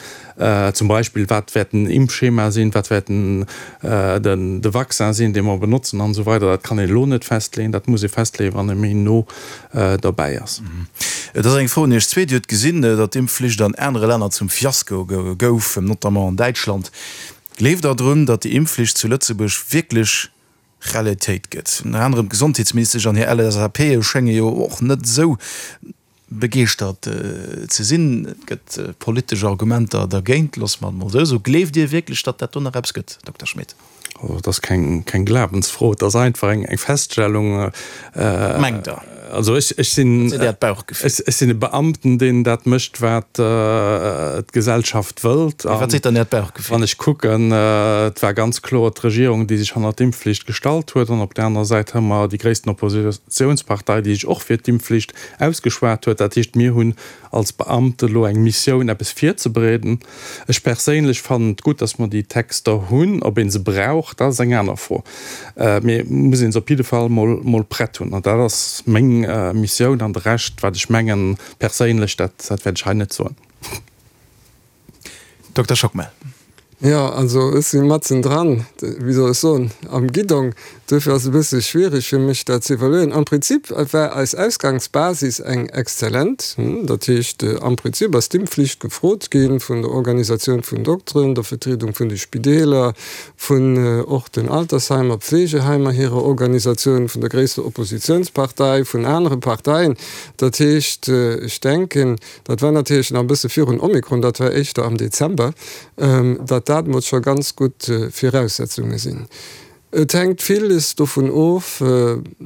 zum Beispill, wat wäert den Impfschema sinn, wat wäert den, de Vaccin sinn, dee mer benotzen an esou weider. Dat kann een elo net festleeën, dat muss ee festleeën, wann ee méi no derbäi ass. Et ass eng Fro un Iech zwee. Dir hutt gesinn, datt d'Impfflicht an anere Länner zum Fiasko gouf, notamment an Däitschland. Gleeft Der drun, datt déi Impfflicht zu Lëtzebuerg wierklech Realitéit gëtt? Ënner anerem d'Gesondheetsministesch an hir LSAPe schénge jo och net esou begeeschtert ze sinn. Et gëtt politesch Argumenter dergéint, loosse mer et mol esou soen. Gleeft Dir wierklech, datt dat do nach eppes gëtt, Dokter Schmit? Also et ass keng, keng Glawensfro, et ass einfach eng, eng Feststellung. Wat mengt Der? Also ech, ech sinn, Wat seet Äert Bauchgefill? ech, ech sinn e Beamten, deen dat mécht, wat d'Gesellschaft wëllt. Mee wat seet dann Äert Bauchgefill? Wann ech kucken, et war ganz kloer d'Regierung, déi sech hannert d'Impfflicht gestallt huet. An op där anerer Säit hu mer déi gréissten Oppositionspartei, déi sech och fir d'Impfflicht ausgeschwat huet. Dat heescht, mir hunn als Beamte elo eng Missioun, eppes virzebereeden. Ech perséinlech fannen et gutt, dass mer déi Texter hunn. Ob ee se brauch, dat ass eng aner Fro. Mee et muss ee se op jidde Fall mol, mol prett hunn. An dat ass meng Missioun. An de Rescht, wat ech mengen perséinlech, dat, dat wäert ech hei net soen. Dokter Schockmel. Jo, also ech si matzen dran, wéi soll ech soen, am Guidong. Duerfir ass et e bësse schwierig fir mech dat ze evaluéieren. Am Prinzip war eis Ausgangsbasis eng exzellent. Dat heescht, am Prinzip ass d'Impfflicht gefrot gi vun der Organisatioun vun Dokteren, der Vertriedung vun de Spideeler, vun och den Altersheimer, Pflegeheimer hirer Organisatioun, vun der gréisster Oppositionspartei, vun anere Parteien. Dat heescht, ech denken, Dat war natierlech nach e bësse virun Omikron, dat war éischter am Dezember, datt dat emol scho ganz gutt Viraussetzunge sinn. Et hänkt villes dovun of,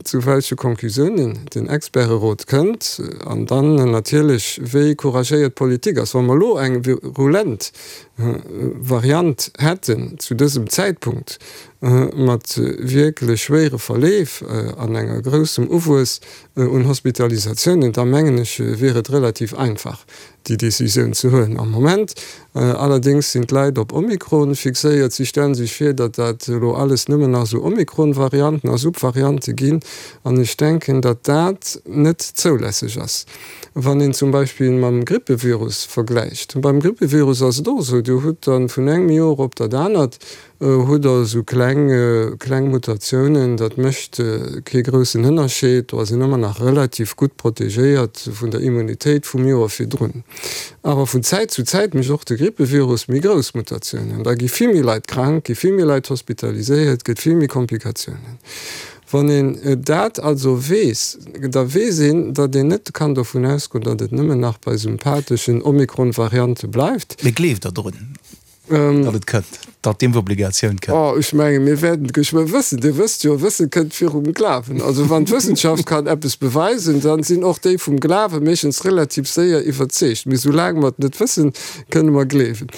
zu welche Conclusiounen den Experterot kënnt an dann natierlech, wéi couragéiert d'Politik ass. Wa mer elo eng virulent Variant hätten zu dësem Zäitpunkt, mat wierklech schwéiere Verleef an enger groussem Uwuess un Hospitalisatiounen, da mengen ech, wier et relativ einfach. déi Decisioun ze huelen. Am Moment allerdéngs sinn d'Leit op Omikron fixéiert. Si stellen sech vir, datt dat elo alles nëmmen nach esou Omikron-Varianten a Subvariante ginn. An ech denken, datt dat net zoulässeg ass. Wann een zum Beispill mam Grippevirus vergläicht, beim Grippevirus ass et och esou, Dir hutt dann vun engem Joer op dat anert hutt Der esou kleng, kleng Mutatiounen, dat mécht kee groussen Ënnerscheed, do ass een ëmmer nach relativ gutt protegéiert vun der Immunitéit vum Joer virdrun. Awer vun Zäit zu Zäit mécht och de Grippevirus méi grouss Mutatiounen, da gi vill méi Leit krank, gi vill méi Leit hospitaliséiert, gëtt vill méi Komplikatiounen. Wann een dat also weess, da weess een, datt een net kann dovun ausgoen, datt et nëmmen nach bei sympatheschen Omikron-Variante bleift. Mee gleeft Der drun, datt et kënnt, datt d'Impfobligatioun kënnt? Oh, ech mengen, mir wäerten et geschwë wëssen. Dir wësst jo, Wësse kënnt virum Glawen. Also wann d'Wëssenschaft kann eppes beweisen, dann sinn och déi vum Glawe meeschtens relativ séier iwwerzeegt. Mee soulaang mer et net wëssen, kënne mer gleewen.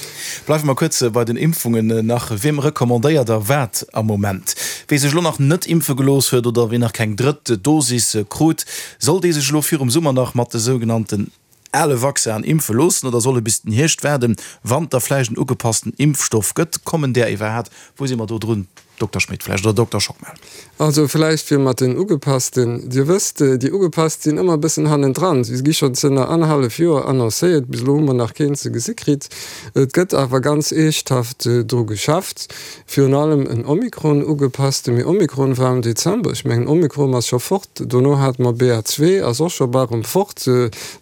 Bleiwe mer kuerz bei den Impfungen nach. Wiem recommandéiert Der wat am Moment? Wee sech elo nach net impfe gelooss huet oder ween nach keng drëtt Dosis krut, soll dee sech elo virum Summer nach mat de sougenannten ale Vaccinen impfe loossen oder soll e bis den Hierscht waarden, wann et da vläicht en ugepassten Impfstoff gëtt? Kommen där iwwerhaat? Wou si mer do drun, Dokter Schmit vläicht oder Dokter Schockmel? Also vläicht fir mat den ugepassten, Dir wësst, déi ugepasst sinn ëmmer e bëssen hannendran. Si gi schonn zënner annerhallef Joer annoncéiert, bis elo hu mer nach keen ze gesi kritt. Et gëtt awer ganz eeschthaft dru geschafft, virun allem en Omikron ugepassten. Mee Omikron war am Dezember, ech mengen Omikron ass scho fort, dono hate mer BA. Ass och scho bal erëm fort.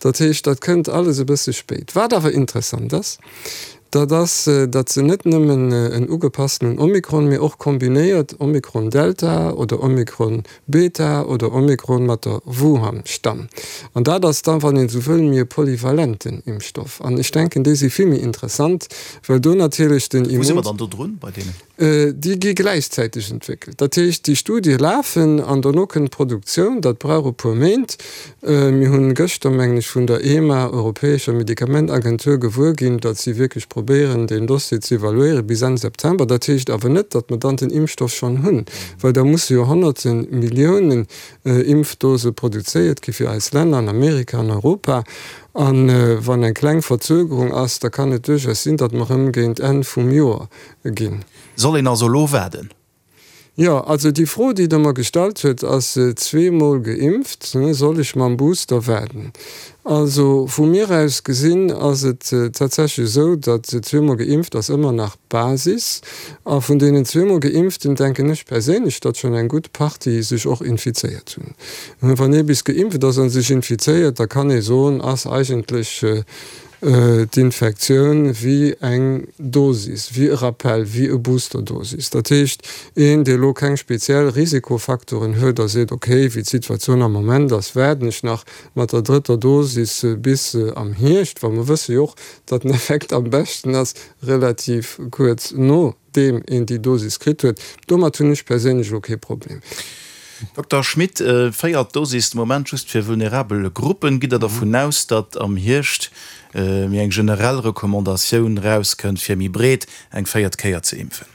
Dat heescht, dat kënnt alles e bësse spéit. Wat awer interessant ass, Dat ass, datt se net nëmmen en ugepasstenen Omikron, mee och kombinéiert Omikron Delta oder Omikron Beta oder Omikron mat der Wuhan-Stamm. An dat ass da, wann een esou wëll, méi e polyvalenten Impfstoff. An ech denken, déi si vill méi interessant, well do natierlech den Wou si mer dann do drun bei deenen? Déi gi gläichzäiteg entwéckelt. Dat heescht, déi Studie lafen an dono kënnt d'Produktioun. Dat brauch e puer Méint. Mir hunn gëschter, mengen ech, vun der EMA, Europäescher Medikamentagentur, gewuer ginn, datt si wierklech probéieren, deen Dossier ze evaluéiere bis Enn September. Dat heescht awer net, datt mer dann den Impfstoff schonn hunn, well da musse jo honnerte Milliounen Impfdose produzéiert gi fir eis Länner an Amerika an Europa. A wann eng kleng Verzögerung ass, da kann et duerchaus sinn, datt mer erëm géint Enn vum Joer ginn. Soll een also elo waarden? Jo, also déi Fro, déi Der mer gestallt huet, ass zweemol geimpft, soll ech mam Booster waarden? Also vu mir aus gesinn ass et tatsächlech esou, datt zweemol geimpft ass ëmmer nach d'Basis. A vun deenen zweemol Geimpften denken ech perséinlech, datt schonn eng gutt Partie sech och infizéiert hunn. Wann ee bis geimpft ass a sech infizéiert, da kann ee soen, ass eigentlech d'Infektioun wéi eng Dosis, wéi e Rappell, wéi e Boosterdosis. Dat heescht, een, dee elo keng speziell Risikofaktoren huet a seet, okay, wéi d'Situatioun am Moment ass, waarden ech nach mat der drëtter Dosis bis am Hierscht, well mer wësse jo och, datt den Effekt am beschten ass relativ kuerz no deem een déi Dosis kritt huet. Domat hunn ech perséinlech elo kee Problem. Dokter Schmit, véiert Dosis de Moment just fir vulnerabel Gruppen. Gitt Der dervun aus, datt am Hierscht méi eng generell Recommandatioun erauskënnt, fir méi breet eng véiert Kéier ze impfen?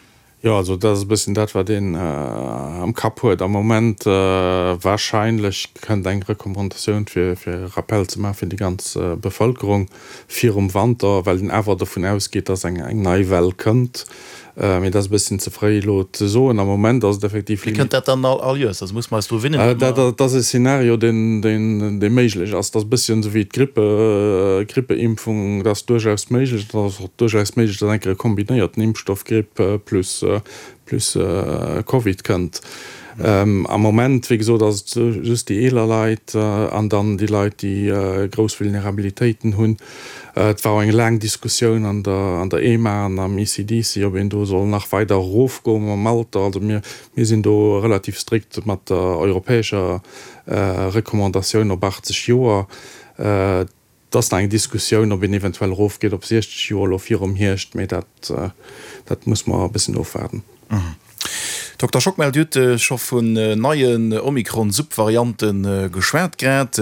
Jo, also dat ass e bësschen dat, wat een am Kapp huet am Moment. Warscheinlech kënnt eng Recommandatioun, fir e Rappell ze maachen fir déi ganz Bevëlkerung. virum Wanter, well een awer dovun ausgeet, dass eng nei Well kënnt. Mee dat ass e bësschen ze fréi elo ze soen. Am Moment ass et effektiv. Mee kënnt dat dann all Joers? Also musse mer eis dru winnen? Dat ass e Szenario, deen méiglech ass. Dat ass e bësschen esou wéi d'Grippe, Grippeimpfung. Dat ass duerchaus méiglech. Et ass och duerchaus méiglech, dass eng Kéier e kombinéierten Impfstoff, Gripp plus plus Covid kënnt. Am Moment, wéi gesot, ass et just déi eeler Leit an dann déi Leit, déi grouss Vulnerabilitéiten hunn. Et war och eng laang Diskussioun an der an der EMA an am ECDC, ob een do soll nach weider erofgoe mam Alter. Also mir mir sinn do relativ strikt mat der europäescher Recommandatioun op 80 Joer. Et ass nach eng Diskussioun, ob een eventuell erofgeet op 60 Joer elo virum Hierscht, mee dat, dat muss mer e bëssen ofwaarden. Dokter Schockmel, Dir hutt scho vun neien Omikron-Subvariante geschwat grad.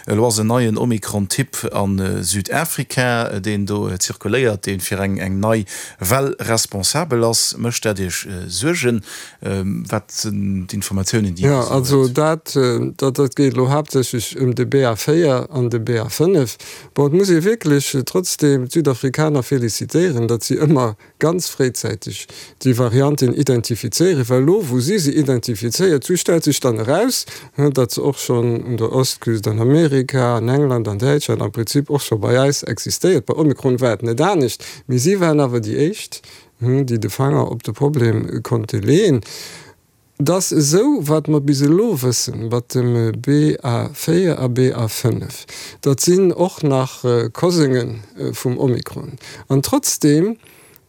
Elo ass en neien Omikron-Typ a Südafrika, deen do zirkuléiert, dee fir eng nei Well responsabel ass. Mécht dat Iech Suergen? Wat sinn d'Informatiounen, déi Dir esou hutt? Jo, also dat, dat geet elo haaptsächlech ëm de BA4 an de BA5. Bon, et muss ee wierklech trotzdeem d'Südafrikaner felicitéieren, datt si ëmmer ganz fréizäiteg déi Varianten identifizéieren, well elo wou si se identifizéiert hu stellt sech dann eraus, datt se och schonn un der Ostküst an Amerika, an England, an Däitschland, am Prinzip och scho bei eis existéiert. Bei Omikron war et net anescht, mee si waren awer déi éischt, déi de Fanger op de Problem konnte leeën. Et ass esou, wat mer bis elo wëssen, mat dem BA4 a BA5, dat sinn och nach Kosénge vum Omikron. An trotzdeem,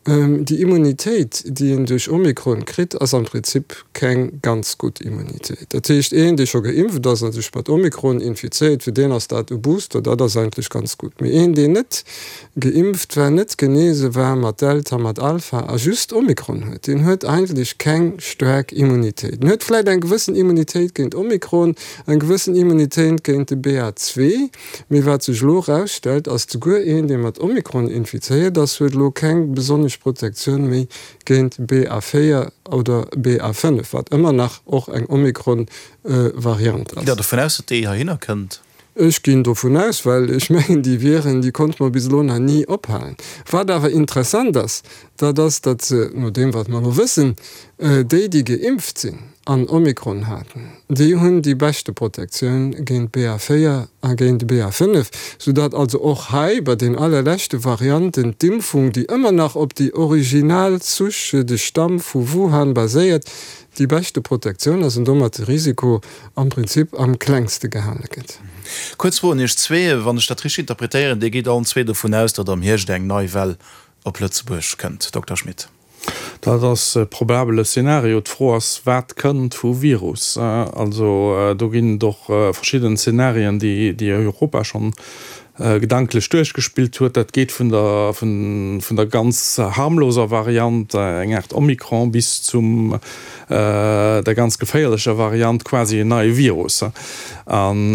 déi Immunitéit, déi een duerch Omikron kritt, ass am Prinzip keng ganz gutt Immunitéit. Dat heescht, een, dee scho geimpft ass a sech mat Omikron infizéiert, fir deen ass dat e Booster, dat ass eigentlech ganz gutt. Mee een, deen net geimpft war, net genese war mat Delta, mat Alpha a just Omikron huet, deen huet eigentlech keng staark Immunitéit. En huet vläit eng gewëssen Immunitéit géint Omikron, eng gewëssen Immunitéit géint de BA. Mee wat sech elo erausstellt, ass, souguer een, dee mat Omikron infizéiert ass, huet elo keng besonnesch Protektioun méi géint BA. Oder BA. Wat ëmmer nach och eng Omikron-Variant ass. Gitt Der dovun aus, datt déi heihinner kënnt? Ech ginn dovun aus, well ech mengen, déi Viren, déi konnte mer bis elo nach ni ophalen. Wat awer interessant ass, dat ass, datt se, no deem wat mer elo wëssen, déi, déi geimpft sinn an Omikron haten, déi hunn déi beschte Protektioun géint BA4 a géint BA5, soudatt also och hei bei den allerleschte Varianten d'Impfung, déi ëmmer nach op déi original Souche, de Stamm vu Wuhan baséiert, déi beschte Protektioun ass an domat de Risiko am Prinzip am klengste gehale gëtt. Kuerz Fro un Iech zwee, Wann ech dat richteg interpretéieren, Dir gitt allen zwee dovun aus, datt am Hierscht eng nei Well op Lëtzebuerg kënnt, Dokter Schmit? Dat ass e probabele Szenario. D'Fro ass, wat kënnt vu Virus? Also do ginn et och verschidden Szenarien, déi Europa schonn gedanklech duerchgespillt huet. Dat geet vun der vun der ganz harmloser Variant, eng Aart Omikron, bis zum der ganz geféierlecher Variant, quasi en neie Virus. An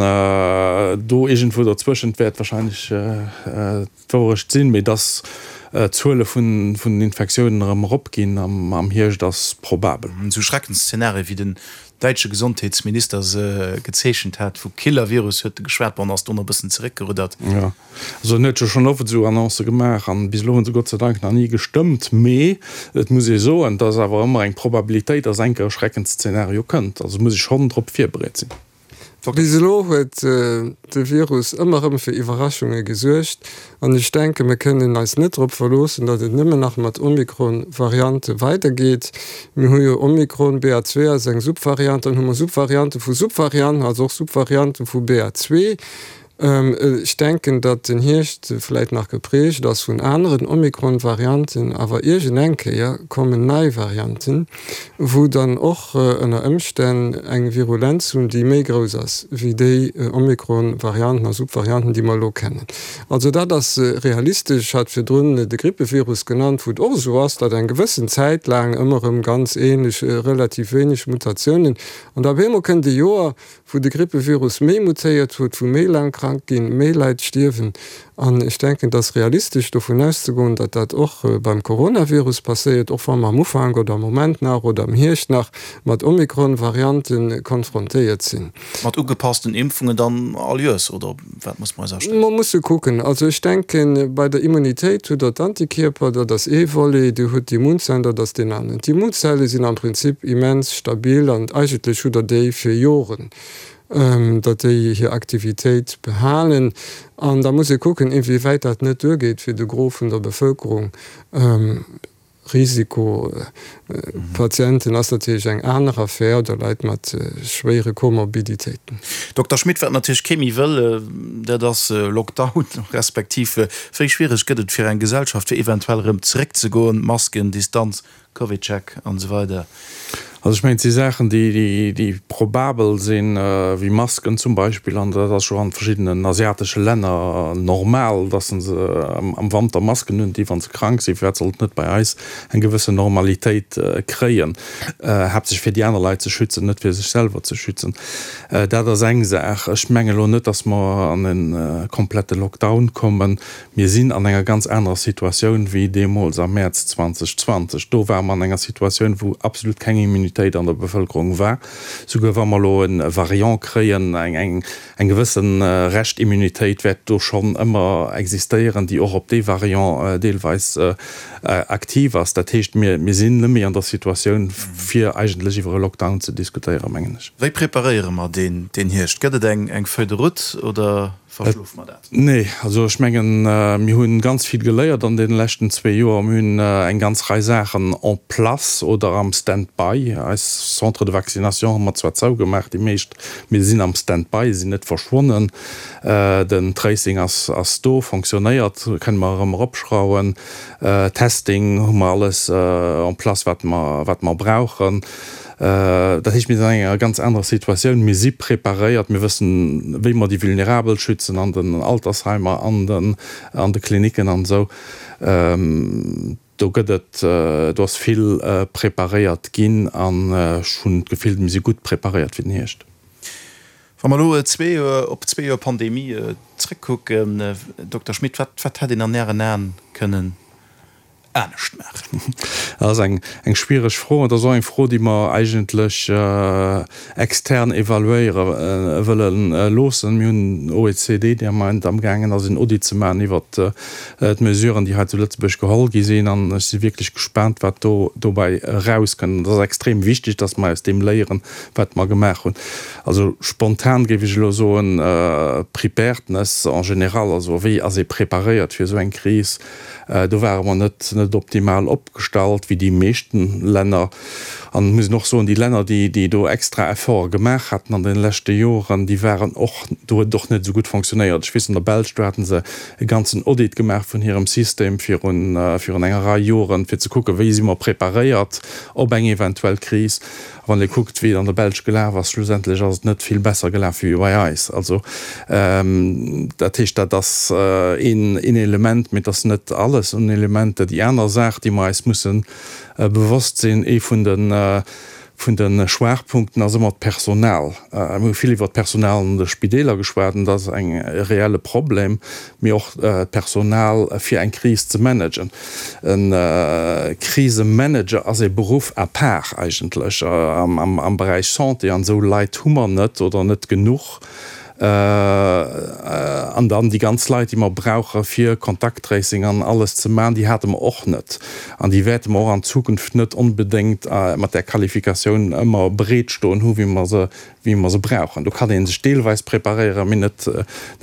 do iergendwou dozwëschent wäert wahrscheinlech d'Wourecht sinn. Mee dass d'Zuele vun den Infektiounen erëm eropginn am Hierscht ass probabel. Esou Schreckensszenarie wéi den däitsche Gesondheetsminister se gezeechent hat, vu Killer-Virus huet e geschwat, bon, ass dono e bëssen zeréckgeruddert. Jo, also en huet jo schonn oft esou Annoncë gemaach an bis elo hunn se Gott sei Dank nach ni gestëmmt. Mee et muss ee soen, et ass awer ëmmer eng Probabilitéit, dass eng Kéier e Schreckensszenario kënnt. Also muss ee schonn drop virbereet sinn. Bis elo huet de Virus ëmmer erëm fir Iwwerraschunge gesuergt an ech denken, mir kënnen eis net drop verloossen, datt et nëmmen nach mat Omikron-Variante weidergeet. Mir hu jo Omikron, BA. 2 ass eng Subvariant, dann hu mer Subvariante vu Subvarianten, also och Subvariante vu BA. 2. Ech denken, datt den Hierscht vläit nach geprägt ass vun aneren Omikron-Varianten, awer iergendeng Kéier kommen nei Varianten, wou dann och ënner Ëmstänn eng Virulenz hunn, déi méi grouss ass wéi déi Omikron-Varianten a Subvarianten, déi mer elo kennen. Also dat ass realistesch. Ech hat virdrun de Grippevirus genannt, wou et och esou ass, datt eng gewëssen Zäit laang ëmmer erëm ganz änlech, relativ wéineg Mutatiounen, an da op eemol kënnt e Joer, wou de Grippevirus méi mutéiert huet, wou méi laang krank ginn, méi Leit stierwen. An ech denken, et ass realistesch dovun auszegoen, datt dat och beim Coronavirus passéiert, och wa mer am Ufank oder am Moment nach oder am Hierscht nach mat Omikron-Variante konfrontéiert sinn. Mat ugepassten Impfungen dann all Joers, oder op wat muss mer eis astellen? Mer musse kucken. Also ech denken, bei der Immunitéit hutt Der d'Antikierper, dat ass ee Volet, Dir hutt d'Immunzellen, dat ass deen aneren. D'Immunzelle sinn am Prinzip immens stabil an eigentlech hutt Der déi fir Joren, datt déi hir Aktivitéit behalen. An da muss ee kucken, inwiewäit dat net duergeet fir de Gros vun der Bevëlkerung. Risikopatienten ass natierlech eng aner Affär, oder Leit mat schwéiere Komorbiditéiten. Dokter Schmit, wat natierlech kee méi wëll, dat ass Lockdown, respektiv wéi schwiereg gëtt et fir eng Gesellschaft fir eventuell erëm zeréckzegoen, Masken, Distanz? CovidCheck an esou weider. Also ech mengen, et si Saachen, déi, déi probabel sinn, wéi Masken zum Beispill, an dat ass scho an verschiddenen asiatesche Länner normal, dass se am Wanter Masken hunn, déi wa se krank sinn. Firwat sollt et net bei eis eng gewëssen Normalitéit kréien, haaptsächlech fir déi aner Leit ze schützen, net fir sech selwer ze schützen. Dat ass eng Saach. Ech menge lo net, dass mer an e komplette Lockdown kommen. Mir sinn an enger ganz anerer Situatioun wéi deemools am Mäerz 2020. Do ware mer an enger Situatioun, wou absolut keng Immunitéit an der Bevëlkerung war. Souguer wa mer elo e Variant kréien, eng gewësse Reschtimmunitéit wäert do schonn ëmmer existéieren, déi och op dee Variant deelweis aktiv ass. Dat heescht, mir sinn net méi an der Situatioun, fir eigentlech iwwer e Lockdown ze diskutéieren, mengen ech. Wéi preparéiere mer deen Hierscht? Gëtt et eng Feuille de route oder Verschlofe mer dat? Nee, also ech mengen, mir hu ganz vill geléiert an deene leschten zwee Joer. Mir hunn eng ganz Rei Saachen en place oder am Stand-by. Eis Centres de vaccination hu mer zwar zougemaach, déi meescht, mee se sinn am Stand-by, se sinn net verschwonnen. Den Tracing ass ass do, fonctionnéiert, kënne mer erëm eropschrauwen. Testing hu mer alles en place, wat mer wat mer brauchen. Dat heescht, mir sinn an enger ganz anerer Situatioun. Mir si preparéiert, mir wëssen, wéi mer déi Vulnerabel schützen an den Altersheimer, an den, an de Klinicken an esou. Do gëtt et, do ass vill preparéiert ginn an ech hunn d'Gefill, mir si gutt preparéiert fir den Hierscht. Wa mer elo zwee Joer, op zwee Joer Pandemie zrëckkucken, Dokter Schmit, wat, wat hätt een an Ären Aen kënnen anescht maachen? Dat ass eng schwiereg Fro. Et ass och eng Fro, déi mer eigentlech extern evaluéiere wëlle loossen. Mir hunn OECD, déi am Moment amgaangen ass, en Audit ze maachen iwwert d'Mesuren, déi hei zu Lëtzebuerg geholl gi sinn. An ech si wierklech gespaant, wat do dobäi erauskënnt. Et ass extrem wichteg, dass mer aus deem léieren, wat mer gemaach hunn. Also spontan géif ech elo soen, Preparedness en général, also wéi ass ee preparéiert fir esou eng Kris? Do ware mer net net optimal opgestallt, wéi déi meeschten Länner. An et muss een och soen, déi Länner, déi déi do extra Efforte gemaach haten an deene leschte Joren, déi waren och, do huet et och net esou gutt fonctionnéiert. Ech weess, an der Belsch, do haten se e ganzen Audit gemaach vun hirem System virun virun enger Rei Joren, fir ze kucken, wéi si mer preparéiert op eng eventuell Kris. Wann ee kuckt, wéi et an der Belsch gelaf ass, schlussendlech ass et net vill besser gelaf wéi bei eis. Also, dat heescht, dat ass een Element, mee et ass net alles un Elementer. Déi aner Saach, déi mer eis musse bewosst sinn, ee vun de, vun de Schwaachpunkten ass ëmmer d'Personal. Mir hu vill iwwert d'Personal an de Spideeler geschwat, an dat ass eng e reelle Problem, mee och d'Personal fir eng Kris ze managen. E Krisemanager ass e Beruff à part eigentlech am Beräich Santé, an esou Leit hu mer net oder net genuch. An dann déi ganz Leit, déi mer brauche fir Kontakttracing an alles ze maachen, déi hate mer och net. An déi wäerte mer och an Zukunft net onbedéngt mat där Qualifikatioun ëmmer bereet stoen hu wéi mer se, wéi mer se brauchen. Do kann ee sech deelweis preparéieren, mee net,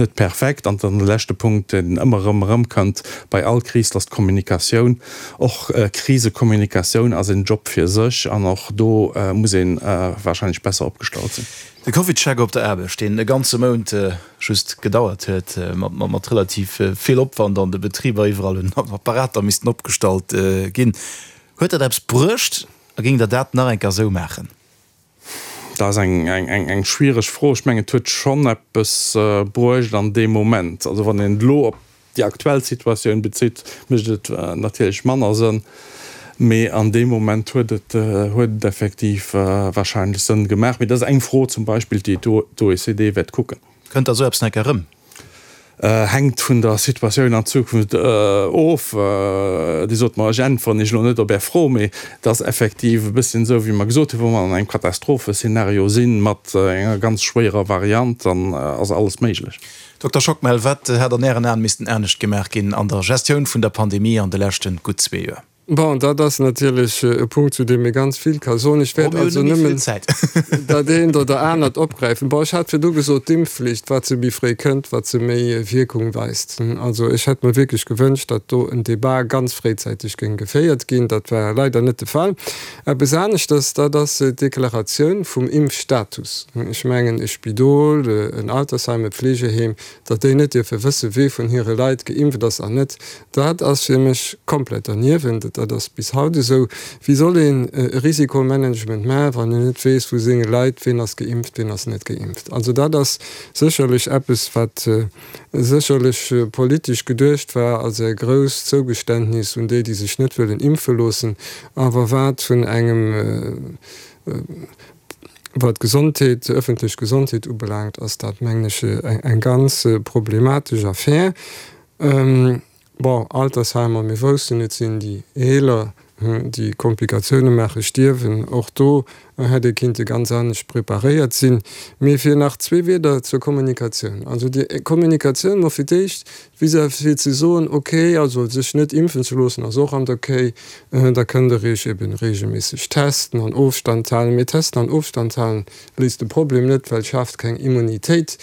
net perfekt. An dann de leschte Punkt, deen ëmmer erëm erëmkënnt bei all Kris, dat ass d'Kommunikatioun. Och Krisekommunikatioun ass en Job fir sech an och do muss ee warscheinlech besser opgestallt sinn. De CovidCheck op der Aarbecht, deen e ganze Mount just gedauert huet, mat relativ vill Opwand an de Betriber, iwwerall hunn Apparater missten opgestallt ginn. Huet dat eppes bruecht a géingt Der dat nach eng Kéier esou maachen? Dat ass eng schwiereg Fro. Ech mengen, et huet schonn eppes bruecht an deem Moment. Also wann een et elo op déi aktuell Situatioun bezitt, mécht et natierlech manner Sënn. Mee an deem Moment huet et huet et effektiv warscheinlech Sënn gemaach. Mee dat ass eng Fro zum Beispill, déi d'OECD wäert kucken. Kënnt da sou eppes nach eng Kéier erëm? Hänkt vun der Situatioun an Zukunft of. Dir sot mer, ech äntweren Iech elo net op Är Fro, mee et ass effektiv e bësschen esou, wéi mer gesot hunn, wa mer an engem Katastropheszenario sinn, mat enger ganz schwéierer Variant, dann ass alles méiglech. Dokter Schockmel, wat hätt an Ären Aen missten anescht gemaach ginn an der Gestioun vun der Pandemie an de leschte gutt zwee Joer? Bon, dat ass natierlech e Punkt, zu deem ee ganz vill ka soen. Ech wäert also nëmmen dat eent oder anert opgräifen. Bon, ech hat virdu gesot, d'Impfflicht, wat se méi fréi kënnt, wat se méi Wierkung weist. Also ech hätt mer wierklech gewënscht, datt do en Débat ganz fréizäiteg géing geféiert ginn. Dat war leider net de Fall. Eppes aneschters, dat ass d'Deklaratioun vum Impfstatus. Ech mengen, e Spidol, en Altersheim, e Pflegeheem, datt déi net dierfe wëssen, wee vun hire Leit geimpft ass an net, dat ass fir mech komplett derniewent. huet. Dat ass bis haut esou. Wéi soll een e Risikomanagement maachen, wann een net weess vu senge Leit, ween ass geimpft, ween ass net geimpft? Also dat ass sécherlech eppes, wat sécherlech politesch geduecht war als e grousst Zougeständnis un déi, déi sech net wëllen impfe loossen, awer wat vun engem, wat d'Gesondheet, d'ëffentlech Gesondheet ubelaangt, ass dat, mengen ech, eng ganz problematesch Affär. Bon, Altersheimer, mir woussten, et sinn déi Eeler, déi Komplikatioune maachen, stierwen. Och do hätt ee kinnte ganz anescht preparéiert sinn. Mee fir nach zwee Wierder zur Kommunikatioun. Also déi Kommunikatioun mol fir d'éischt vis-à-vis fir ze soen, okay, also sech net impfen ze loossen ass och an der Kéi, da kënnt Der Iech eben reegelméisseg testen an Ofstand halen. Mee testen an Ofstand halen léist de Problem net, well schaaft keng Immunitéit.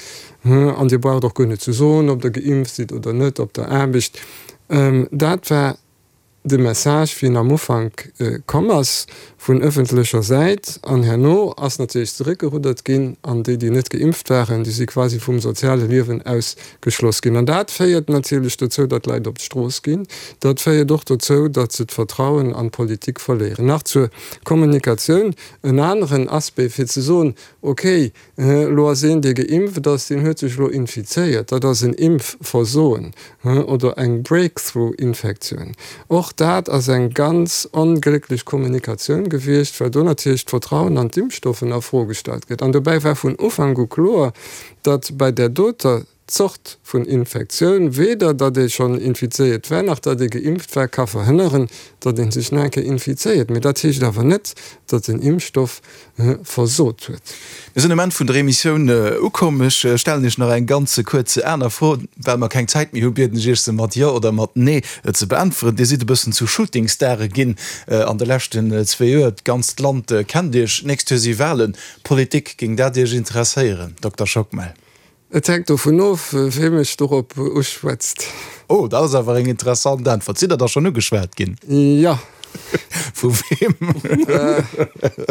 An Dir braucht och guer net ze soen, ob Der geimpft sidd oder net op der Aarbecht. Dat war de Message, wéi en am Ufank komm ass vun ëffentlecher Säit. An herno ass natierlech zeréckgeruddert ginn an déi, déi net geimpft waren, déi si quasi vum soziale Liewen ausgeschloss ginn. An dat féiert natierlech dozou, datt d'Leit op d'Strooss ginn. Dat féiert och dozou, datt se d'Vertrauen an d'Politik verléieren. Nach zur Kommunikatioun en aneren Aspect, fir ze soen, Okay, Elo ass een, dee geimpft ass, deen huet sech elo infizéiert. Dat ass en Impfversoen oder eng Breakthrough-Infektioun. Och dat ass eng ganz onglécklech Kommunikatioun gewiescht, well do natierlech d'Vertrauen an d'Impfstoffen a Fro gestallt gëtt. An dobäi war vun Ufank u kloer, datt bei där doter Zort vun Infektioun, weder datt ee schonn infizéiert war, nach datt ee geimpft war, ka verhënneren, datt ee sech nach eng Kéier infizéiert. Mee dat heescht awer net, datt den Impfstoff versot huet. Mir sinn um Enn vun der Emissioun ukomm. Ech stellen Iech nach eng ganz kuerz aner Fro. Well mer keng Zäit méi hu, bieden ech Iech, se mat Jo oder mat Nee ze beäntweren. Dir sidd e bëssen zu Shootingstare ginn an de leschten zwee Joer. D'ganzt Land kennt Iech. D'nächst Joer si Walen. Politik, géing dat Iech interesséieren, Dokter Schockmel? Et hänkt dovun of, wee mech dorop uschwätzt. Oh, dat ass awer eng interessant Äntwert. Sidd Der da schonn ugeschwat ginn? Jo. Vu weem?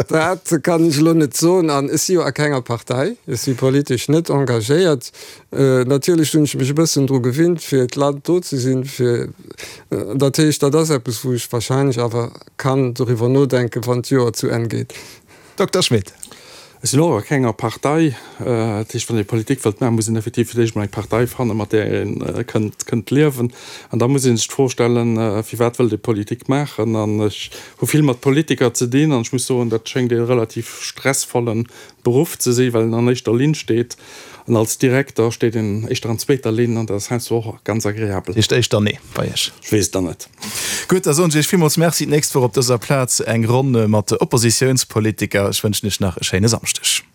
Dat kann ech elo net soen. An ech si jo a kenger Partei. Ech si politesch net engagéiert. Natierlech hunn ech mech e bëssen dru gewinnt, fir d'Land do ze sinn, fir, dat heescht, dat ass eppes, wou ech wahrscheinlech awer kann doriwwer nodenken, wann d'Joer zu Enn geet. Dokter Schmit. Ech sinn och a kenger Partei. Dat heescht, wann ee Politik wëllt maachen, muss een effektiv fir d'éischt mol eng Partei fannen, mat där ee kënnt, kënnt liewen. An da muss ee sech d'Fro stellen, firwat wëllt ee Politik maachen? An ech hu vill mat Politiker ze dinn an ech muss soen, dat schéngt ee relativ stressvollen Beruff ze sinn, well een an éischter Linn steet. An als Direkter steet een éischter an zweeter Linn an dat ass heiansdo och ganz agreabel. Heescht éischter Nee bei Iech? Ech weess et dann net. Gutt, da soen ech Iech villmools Merci. D'nächst Woch op dëser Plaz eng Ronn mat Oppositiounspolitiker. Ech wënschen Iech nach e schéine Samschdeg.